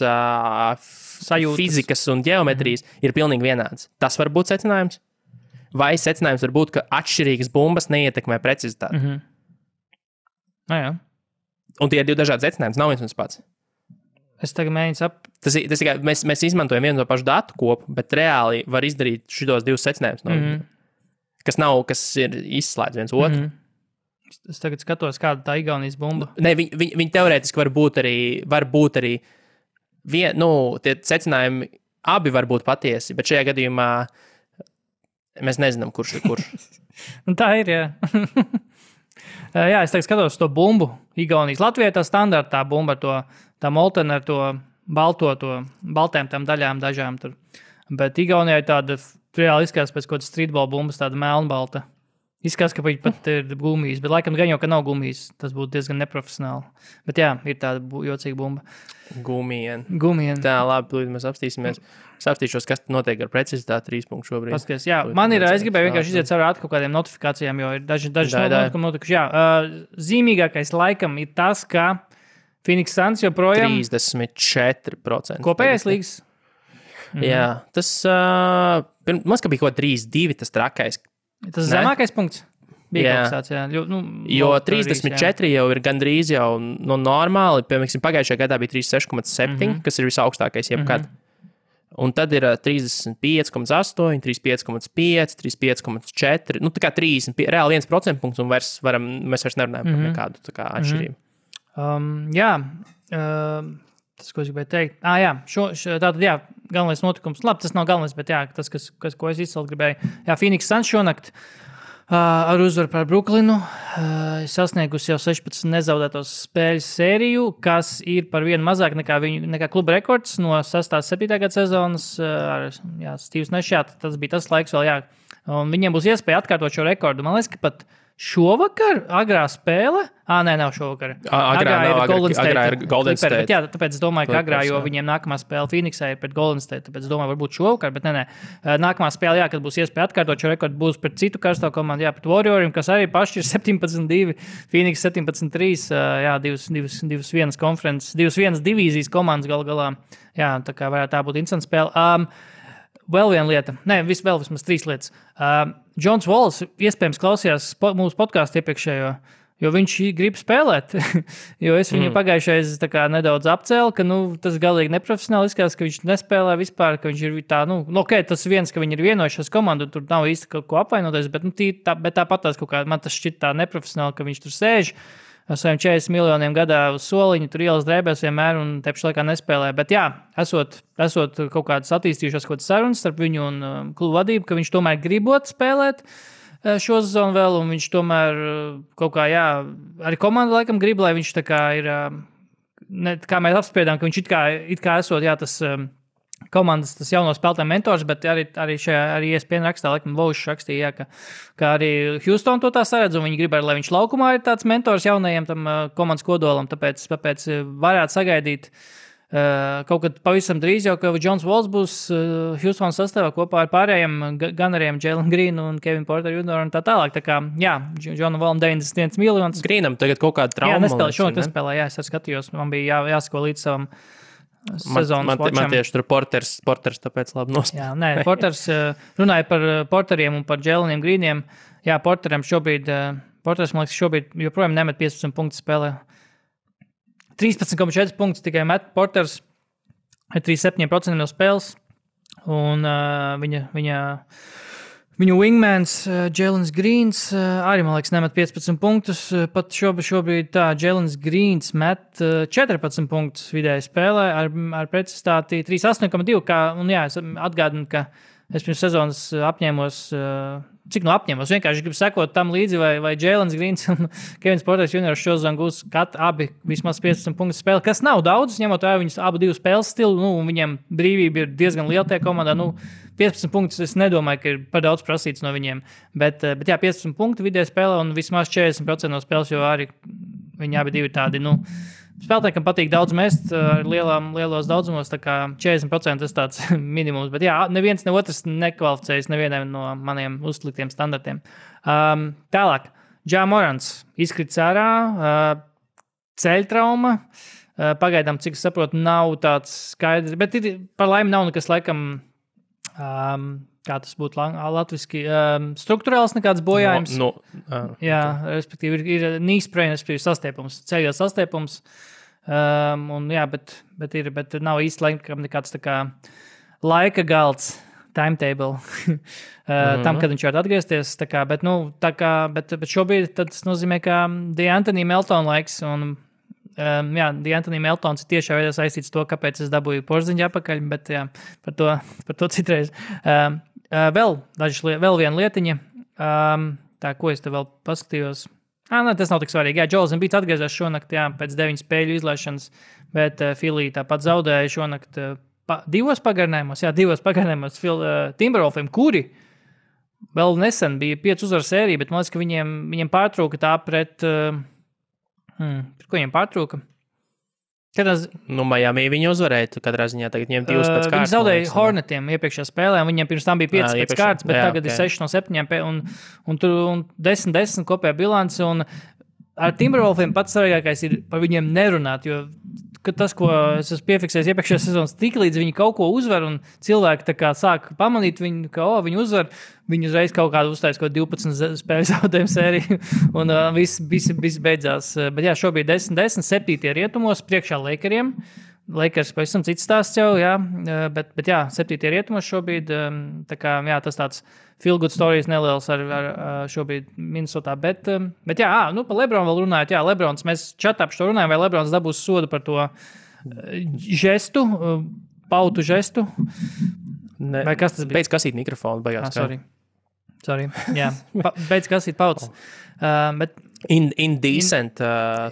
Speaker 2: fizikas un ģeometrijas ir pilnīgi vienāds. Tas var būt secinājums. Vai secinājums var būt, ka atšķirīgas bumbas neietekmē precizitāti.
Speaker 3: Jā.
Speaker 2: Un tie ir divi dažādi secinājumi. Nav viens un tas pats.
Speaker 3: Es tagad mēģinu
Speaker 2: Tas ir, mēs izmantojam vienu no pašu datu kopu, bet reāli var izdarīt šitos divus secinājumus, kas ir izslēdz viens otru.
Speaker 3: Es tagad skatos, kāda tā Igaunijas bumba.
Speaker 2: Ne, viņi teorētiski var būt arī tie secinājumi abi var būt patiesi, bet šajā gadījumā mēs nezinām, kurš ir kurš.
Speaker 3: Tā ir, jā. Jā, es tagad skatos to bumbu. Igaunijas Latvijā tā standarta bumba, tā moltena ar to baltēm tām daļām dažām tur. Bet Igaunijā ir tāda, reāli izskatās pēc kaut kādas streetball bumbas, tāda melnbalta. Izskatās, ka viņi pat ir gumijas, bet laikam gan jau, ka nav gumijas. Tas būtu diezgan neprofesionāli. Bet jā, ir tāda jocīga bumba.
Speaker 2: Gumien.
Speaker 3: Tā,
Speaker 2: labi, mēs apstīsimies. Es apstīšos, kas notiek ar precizitāti 3 punktu šobrīd.
Speaker 3: Paskaties, jā, es gribēju vienkārši iziet cauri kaut kādiem notifikācijām, jo ir daži notikumi notikuši. Jā, zīmīgākais laikam ir tas, ka Phoenix Suns joprojām
Speaker 2: 34%.
Speaker 3: Kopējais līgas.
Speaker 2: Jā, tas man ska bija kaut 3-2 tas trakais.
Speaker 3: Tas zemākais punkts? Bija kaut kāds, jā.
Speaker 2: Jo 34 jau ir gandrīz jau normāli. Piemēram, pagājušajā gadā bija 36,7, kas ir visaugstākais jebkad. Un tad ir 35,8, 35,5, 35,4. Tā kā 30, reāli 1% punkts, un mēs vairs nerunājam par nekādu atšķirību.
Speaker 3: Tas, ko es gribēju teikt. Tātad, galvenais notikums. Labi, tas nav galvenais, bet tas, ko es izcelt gribēju. Jā, Phoenix Suns šonakt ar uzvaru par Brooklynu sasniegusi jau 16 nezaudētos spēļu sēriju, kas ir par vienu mazāk nekā kluba rekords no 6.7. gada sezonas. Steve's Nešā, tas bija tas laiks vēl, un viņiem būs iespēja atkārtot šo rekordu. Man liekas, ka pat šovakar agrā spēle. Nav šovakar.
Speaker 2: Agrā ir Golden State.
Speaker 3: Bet, tāpēc es domāju, ka agrā, jo viņiem nākamā spēle Phoenixā ir pret Golden State. Tāpēc es domāju, varbūt šovakar, bet nē. Nākamā spēle, kad būs iespēja atkārtot šo rekordu, būs pret citu karsto komandu, pret Warrioriem, kas arī paši ir 17-2, Phoenix 17-3, 2-1 konferences, 2-1 divīzijas komandas galā. Tā kā varētu tā būt interesanta spēle. Vēl viena lieta, vismaz 3 lietas. Džons Walls iespējams klausījās mūsu podkāstu iepriekšējo, jo viņš grib spēlēt. Jo es viņu pagājušais nedaudz apcēlu, ka tas galīgi neprofesionāli izskatās, ka viņš nespēlē vispār, ka viņš ir tā, tas viens, ka viņi ir vienojušies komandu, tur nav īsti kaut ko apvainoties, bet tāpat tās kaut kā, man tas šķiet tā neprofesionāli, ka viņš tur sēž ar saviem 40 miljoniem gadā uz soliņu, tur ielas drēbēs vienmēr un te pašā laikā nespēlē. Bet esot kaut kādas attīstījušās kaut kādas sarunas starp viņu un klubu vadību, ka viņš tomēr gribot spēlēt šo sezonu vēl, un viņš tomēr kaut kā, arī komanda laikam grib, lai viņš tā kā ir, kā mēs apspriedām, ka viņš it kā esot, tas komandas, tas jauno spēlētāju mentors, bet arī ESPN rakstā, laikam, Vaušs rakstīja, ka arī Houston to tā saredz, un viņi grib, lai viņš laukumā ir tāds mentors jaunajiem tam komandas kodolam, tāpēc varētu sagaidīt kaut kad pavisam drīz jau, ka Džons Walls būs Houston sastāvā kopā ar pārējiem Gunneriem, Jalen Greenu un Kevin Porter Jr. un tā tālāk. Tā kā, Džonam Wallam 91 miljonus.
Speaker 2: Greenam tagad kaut kāda trauma.
Speaker 3: Šonakt nespēlē, es arī skatījos, man bija jāsako līdz savam sezonas watcham.
Speaker 2: Man tieši tur Porters tāpēc labi nospēlē.
Speaker 3: Porters runāja par Porteriem un par Jaleniem Greeniem. Porteram šobrīd, man liekas, joprojām nemet 15 punktu spēlē. 13,4 punktus tikai met Porters ar 37% no spēles. Un viņu wingmans Jalens Greens arī, man liekas, nemet 15 punktus. Pat šobrīd Jalens Greens met 14 punktus vidēji spēlē ar precizitāti 3,8,2. Es atgādinu, ka es pirms sezonas apņēmos, vienkārši gribu sekot tam līdzi, vai Jalens Greens un Kevins Porters Jr. šo sezonu gūs abi vismaz 15 punktu spēli, kas nav daudz, ņemot vērā viņus abu divu spēles stilu, un viņiem brīvība ir diezgan liela tajā komandā. 15 punktus es nedomāju, ka ir par daudz prasīts no viņiem, bet 15 punktu vidēji spēlē un vismaz 40% no spēles, jo arī viņi abi divi tādi, spēlētājiem patīk daudz mest ar lielos daudzumos, tā kā 40% tas tāds minimums. Bet neviens ne otrs nekvalificējas nevienam no maniem uzliktiem standartiem. Tālāk. Ja Morants izkrits ārā, ceļtrauma. Pagaidām, cik es saprotu, nav tāds skaidrs, bet par laimi nav nekas laikam, kā tas būtu latviski, strukturāls nekāds bojājums. Jā, respektīvi ir knee sprain, respektīvi sastiepums, ceļot sastiepums. Bet nav īsti laikam nekāds tā kā laika galds, timetable, tam, kad viņš var atgriezties. Bet šobrīd tas nozīmē, ka D'Anthony Melton laiks un D'Anthony Meltons ir tiešā veidā saistīts to, kāpēc es dabūju porziņu apakaļ, bet jā, par to citreiz. Vēl viena lietiņa, ko es te vēl paskatījos. Tas nav tik svarīgi. Jā, Joels Embiids atgriezās šonakt, pēc 9 spēļu izlaišanas, bet Philly tāpat zaudēja šonakt 2 pagarinājumos Timberwolfiem, kuri vēl nesen bija 5 uzvaru sērija, bet man liekas, ka viņiem pārtrūka tā pret... ko viņiem pārtrūka?
Speaker 2: Miami viņi uzvarēja, katrā ziņā tagad viņiem 2 pēc kārtas.
Speaker 3: Viņi zaudēja Hornetiem iepriekšējā spēlē, un viņiem pirms tam bija 5 pēc kārtas, bet tagad ir 6 no 7 un 10 kopējā bilance, un ar Timberwolfiem pats svarīgākais ir par viņiem nerunāt, jo tas, ko es esmu piefiksējis iepriekšējā sezonas, tik līdz viņi kaut ko uzvar, un cilvēki tā kā sāk pamanīt viņu, ka viņi uzvar, viņi uzreiz kaut kādu uztais, 12 spēļu zaudējumu sēriju, un viss beidzās. Bet jā, šobrīd 10-10, 7. rietumos, priekšā Lakeriem. Lakers pavisam cits stāsts jau, jā, bet jā, 7. rietumos šobrīd, tā kā, jā, tas tāds feel good stories neliels ar šobrīd Minnesotā, bet jā, par Lebronu vēl runājot, jā, Lebrons, mēs čatā par to runājam, vai Lebrons dabūs sodu par to žestu, pautu žestu, vai kas tas bija?
Speaker 2: Beidz kasīt mikrofonu, beigās.
Speaker 3: Sorry, jā, beidz kasīt pautas, bet
Speaker 2: Indecent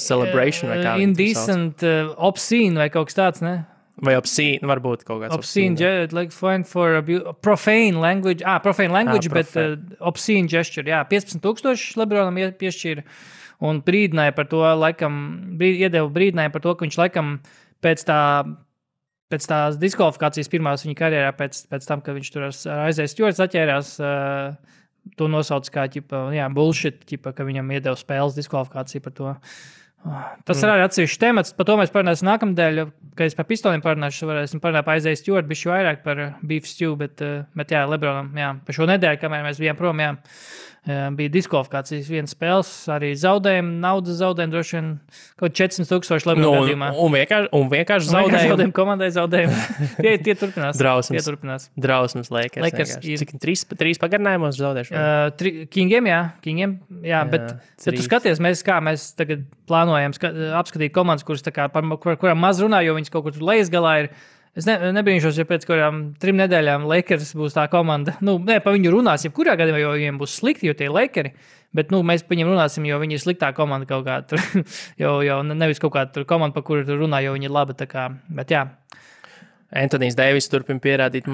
Speaker 2: celebration vai kā.
Speaker 3: Indecent obscene vai kaut kas tāds, ne?
Speaker 2: Vai obscene, varbūt kaut kāds
Speaker 3: obscene. Like fine for profane language, bet obscene gesture, jā, 15,000 Lebronam piešķīra un brīdināja par to, iedeva brīdinājumu par to, ka viņš laikam pēc tās diskvalifikācijas pirmās viņa karjerā, pēc tam, kad viņš tur ar Isaiah Stewarts atķērās, to nosauc kā bullshit, ka viņam iedeva spēles diskvalifikāciju par to. Tas ir arī atsevišķs temats, par to mēs parunāsim nākamdēļ, kad es par pistoliem parunāšu, varēsim parunāt par Isaiah Stewart, bišķi vairāk par beef stew, bet jā, Lebronam, jā, par šo nedēļu, kamēr mēs bijām prom, jā, bija diskvalifikācijas vienas spēles, arī zaudējumi, naudas zaudējumi, droši vien kaut 400,000 Lebron gadījumā.
Speaker 2: Un vienkārši zaudējumi.
Speaker 3: Komandai zaudējumi. Tie turpinās.
Speaker 2: Drausmas Lakers. Cik 3 pagarinājumos zaudējuši?
Speaker 3: Kingiem, jā, bet tu skaties, mēs tagad plānojam apskatīt komandas, kuras tā kā, par kurām maz runā, jo viņas kaut kur tur lejas galā ir. Es nebrīnšos, ja pēc kurām 3 nedēļām Lakers būs tā komanda. Par viņu runās, jebkurā gadījumā, jo viņiem būs slikti, jo tie ir Lakeri. Bet mēs par viņiem runāsim, jo viņi ir sliktā komanda kaut kā tur. jo nevis kaut kāda komanda, par kuru tur runā, jo viņi ir laba. Tā kā. Bet jā.
Speaker 2: Anthony's Davis turpina pierādīt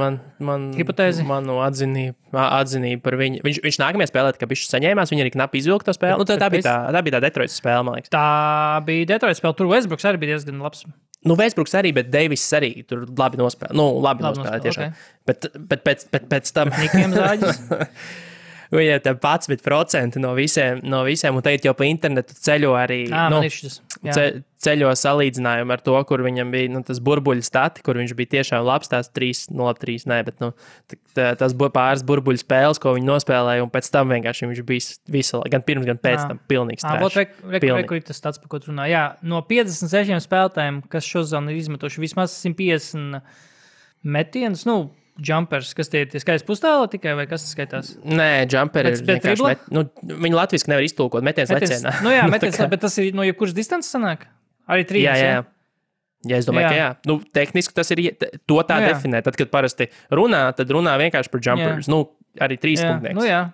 Speaker 3: hipotēzi.
Speaker 2: Manu atzinību par viņu. Viņš nākamajā spēlē, ka viņš saņēmās, viņi arī knapi izvilka to spēli. Tā bija tā Detroitas spēle, man liekas.
Speaker 3: Tā bija Detroitas spēle. Tur Westbrooks arī bija diezgan labs.
Speaker 2: Westbrooks arī, bet Davis arī tur labi nospēlē. Labi nospēlē tiešām. Okay. Bet pēc tam...
Speaker 3: Nikiem zāģis.
Speaker 2: Viņai tā 11% no visiem, un teikt jau pa internetu ceļo arī, ceļo salīdzinājumu ar to, kur viņam bija tas burbuļu stati, kur viņš bija tiešām labs, tās 3-0-3, bet tas pāris burbuļu spēles, ko viņi nospēlēja, un pēc tam vienkārši viņš bija gan pirms, gan pēc tam pilnīgs trash.
Speaker 3: Kur ir tas stats, par ko tu runā? Jā, no 56 spēlētājiem, kas šodien ir izmetuši vismaz 150 metienus, jumpers, kas tie ir skaisti pustāli tikai, vai kas tas skaitās?
Speaker 2: Nē, jumperi ir vienkārši viņi latviski nevar iztulkot, metiens lecienā.
Speaker 3: Jā, metiens, bet tas ir no jebkuras distances sanāk? Arī 3.
Speaker 2: Jā. Ja es domāju, ka jā. Tehniski tas ir, to tā definē. Tad, kad parasti runā, tad runā vienkārši par jumpers. Arī 3 punktnieks.
Speaker 3: Jā.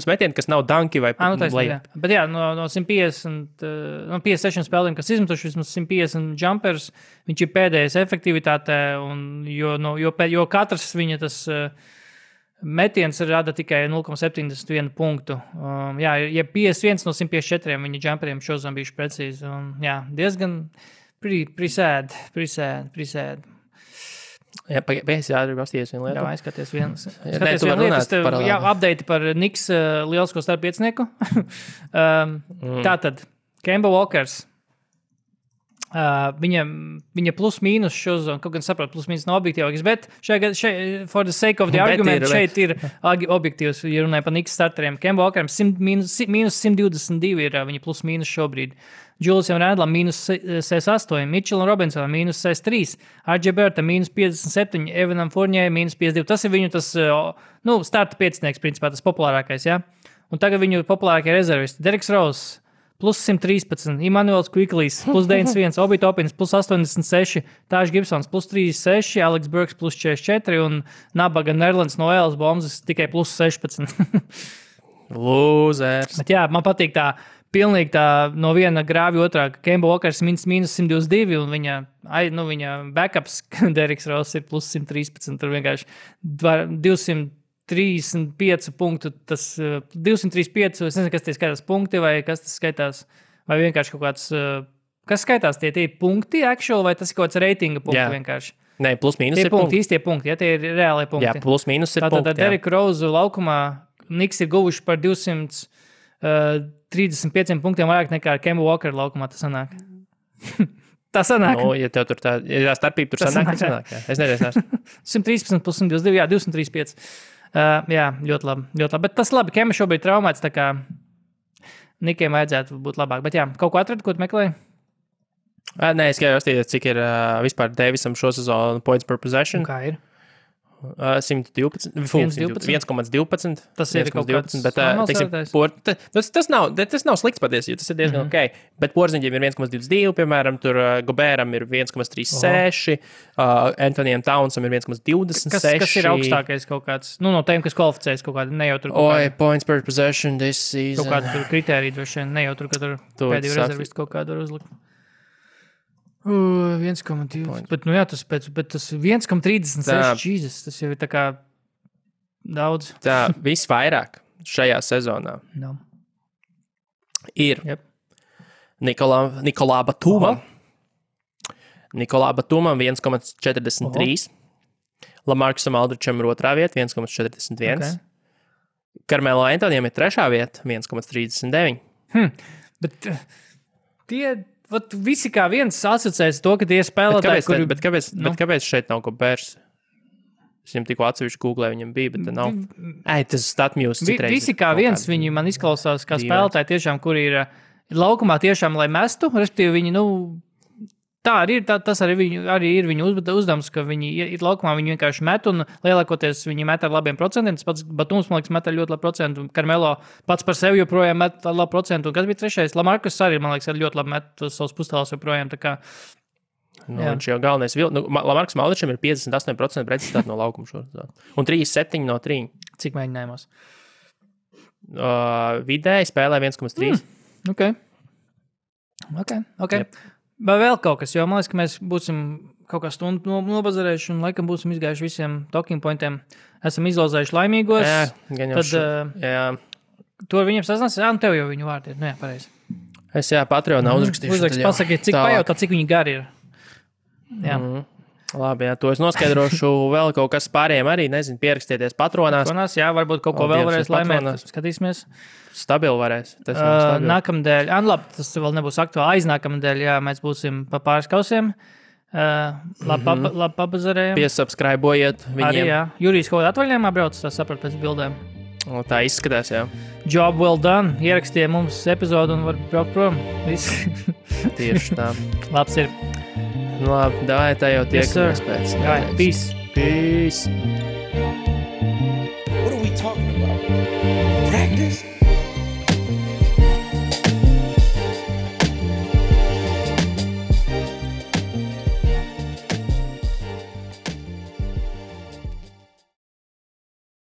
Speaker 2: Metieni, kas nav danki vai
Speaker 3: layup. Bet jā, no 150, 56 spēlēm, kas izmetuši vismaz 150 jumpers, viņš ir pēdējais efektivitātē, jo katrs viņa tas metiens rada tikai 0,71 punktu. Jā, ja 51 no 154 viņa jumperiem šodien bijuši precīzi. Jā, diezgan pretty sad.
Speaker 2: Jā, pēc jādara pasties vienu lietu.
Speaker 3: Jā, aizskaties vienu.
Speaker 2: Nē, tu var runāt par
Speaker 3: Jā, update par Knicks lielisko starppiecnieku. Tātad, Kemba Walkers. Viņa plus mīnus šo zonu, kaut gan saprot, plus mīnus nav objektīvāks, bet šeit, for the sake of the argument, šeit ir objektīvs, ja runāja par Knicks starteriem. Kemba Walkeram mīnus 122 ir viņa plus mīnus šobrīd. Juliusam Randlam mīnus 68, Mitchellam Robinsonam mīnus 63, RJ Barrettam mīnus 57, Evanam Fournier mīnus 52. Tas ir viņu starta piecinieks, principā tas populārākais, jā. Un tagad viņu populārākie rezervisti. Derriks Rose plus 113, Immanuels Quicklys plus 91, Obi Toppins plus 86, Taj Gibsons plus 36, Alex Burks plus 44 un Nabaga Nerlands no Elas Bombas tikai plus 16.
Speaker 2: Lūzers.
Speaker 3: Bet jā, man patīk tā pilnīgi tā no viena grāvja otrā, ka Kemba Walkers mīnus 122 un viņa backups Derriks Rose ir plus 113. Tur vienkārši 235 punktu, tas 235, es nezinu, kas tie skaitās punkti vai kas tas skaitās, vai vienkārši kaut kāds, kas skaitās tie punkti actual vai tas ir kaut kāds reitinga punkti vienkārši.
Speaker 2: Nē, plus mīnus
Speaker 3: tie
Speaker 2: ir punkti.
Speaker 3: Īstie punkti, ja tie ir reālie punkti.
Speaker 2: Jā, plus mīnus ir punkti.
Speaker 3: Tātad Derrick Rose laukumā Knicks ir guvuši par 235 punktiem vairāk nekā Kemba Walker laukumā tas sanāk. Tā sanāk.
Speaker 2: Nu, ja tev tur tā starpība tur sanāk. Jā. Es nezinu.
Speaker 3: 113 plus 122, jā, 235. Jā, ļoti labi. Bet tas labi, Kemba šobrīd traumēts, tā kā Nikiem vajadzētu būt labāk. Bet jā, kaut ko atradu, ko tu meklēji?
Speaker 2: Nē, es gribēju atstīt, cik ir vispār Davisam šo sezonu points per possession.
Speaker 3: Un kā ir?
Speaker 2: 112. 1,12.
Speaker 3: Tas ir kaut kāds
Speaker 2: bet, tas nav slikts patiesi, jo tas ir diezgan ok. Bet Porziņģiem ir 1,22, piemēram, tur Gobēram ir 1,36, Antonijam Townsam ir 1,26.
Speaker 3: Kas ir augstākais kaut kāds, no tiem, kas kvalificējas kaut kādi, ne jau tur kaut kādi.
Speaker 2: Points per possession this season.
Speaker 3: Kaut kādi tur kritēriji droši vien, ne jau tur, ka tur pēdējo rezervistu kaut kādu var uzlikt. 1,2. Bet tas 1,36. Jesus, tas jau ir tā kā daudz.
Speaker 2: Tā visvairāk šajā sezonā ir Nikolā Batumam. Nikolā Batumam 1,43. Lamarcusam Aldričam ir otrā vieta 1,41. Okay. Karmelo Antonijam ir trešā vieta 1,39.
Speaker 3: Bet tie... Visi kā viens asociēs to, ka tie spēlētāji,
Speaker 2: kāpēc šeit nav Gobērs? Es viņam tikko atsevišķi googlē, viņam bija, bet nav. Tas StatMuse citreiz.
Speaker 3: Visi kā viens, viņi man izklausās kā spēlētāji tiešām, kuri ir laukumā tiešām, lai mestu, respektīvi viņi, tā arī ir, tas arī ir viņu uzdevums, ka viņi ir laukumā, viņi vienkārši met un lielākoties viņi met ar labiem procentiem. Tas pats Batums, man liekas, met ar ļoti labu procentu. Karmelo pats par sevi joprojām met ar labu procentu. Un kas bija trešais? Lamarcus arī, man liekas, ar ļoti labi met savus pustālus joprojām. Tā kā,
Speaker 2: viņš jau galvenais Lamarcusam Aldričam ir 58% precizitāte no laukuma šodien. Un 3,7 no 3.
Speaker 3: Cik mēģinājumos?
Speaker 2: Vidēji spēlē 1,3.
Speaker 3: Ok. Yep. Vai vēl kaut kas, jo man liekas, ka mēs būsim kaut kā stundu nobazarējuši un laikam būsim izgājuši visiem talking pointiem. Esam izlozējuši laimīgos.
Speaker 2: Jā.
Speaker 3: Tu ar viņiem sasnāsi? Un tev jau viņu vārdi ir. Jā, pareizi.
Speaker 2: Es Patreonā uzrakstīšu.
Speaker 3: Pasakiet, cik pajautā, cik viņi gari ir. Jā.
Speaker 2: Labi, to es noskaidrošu vēl kaut kas pārējiem arī. Nezinu, pierakstieties Patronās.
Speaker 3: Jā, varbūt kaut ko vēl varēs laimēt. Skatīsimies.
Speaker 2: Stabili varēs.
Speaker 3: Nākamdēļ, tas vēl nebūs aktuāli. Aiznākamdēļ, mēs būsim pa pāris kausiem. Labi pabazarējam.
Speaker 2: Piesubscribojiet viņiem.
Speaker 3: Arī, jā. Jurijs kaut kādā atvaļinājumā brauc, tā saprat pēc bildēm.
Speaker 2: Tā izskatās, jā.
Speaker 3: Job well done. Ierakstīja mums epizodu un var braukt prom. Viss.
Speaker 2: Tieši tā.
Speaker 3: Labs ir.
Speaker 2: Labi, davai, tā jau tiekamies pēc.
Speaker 3: Peace.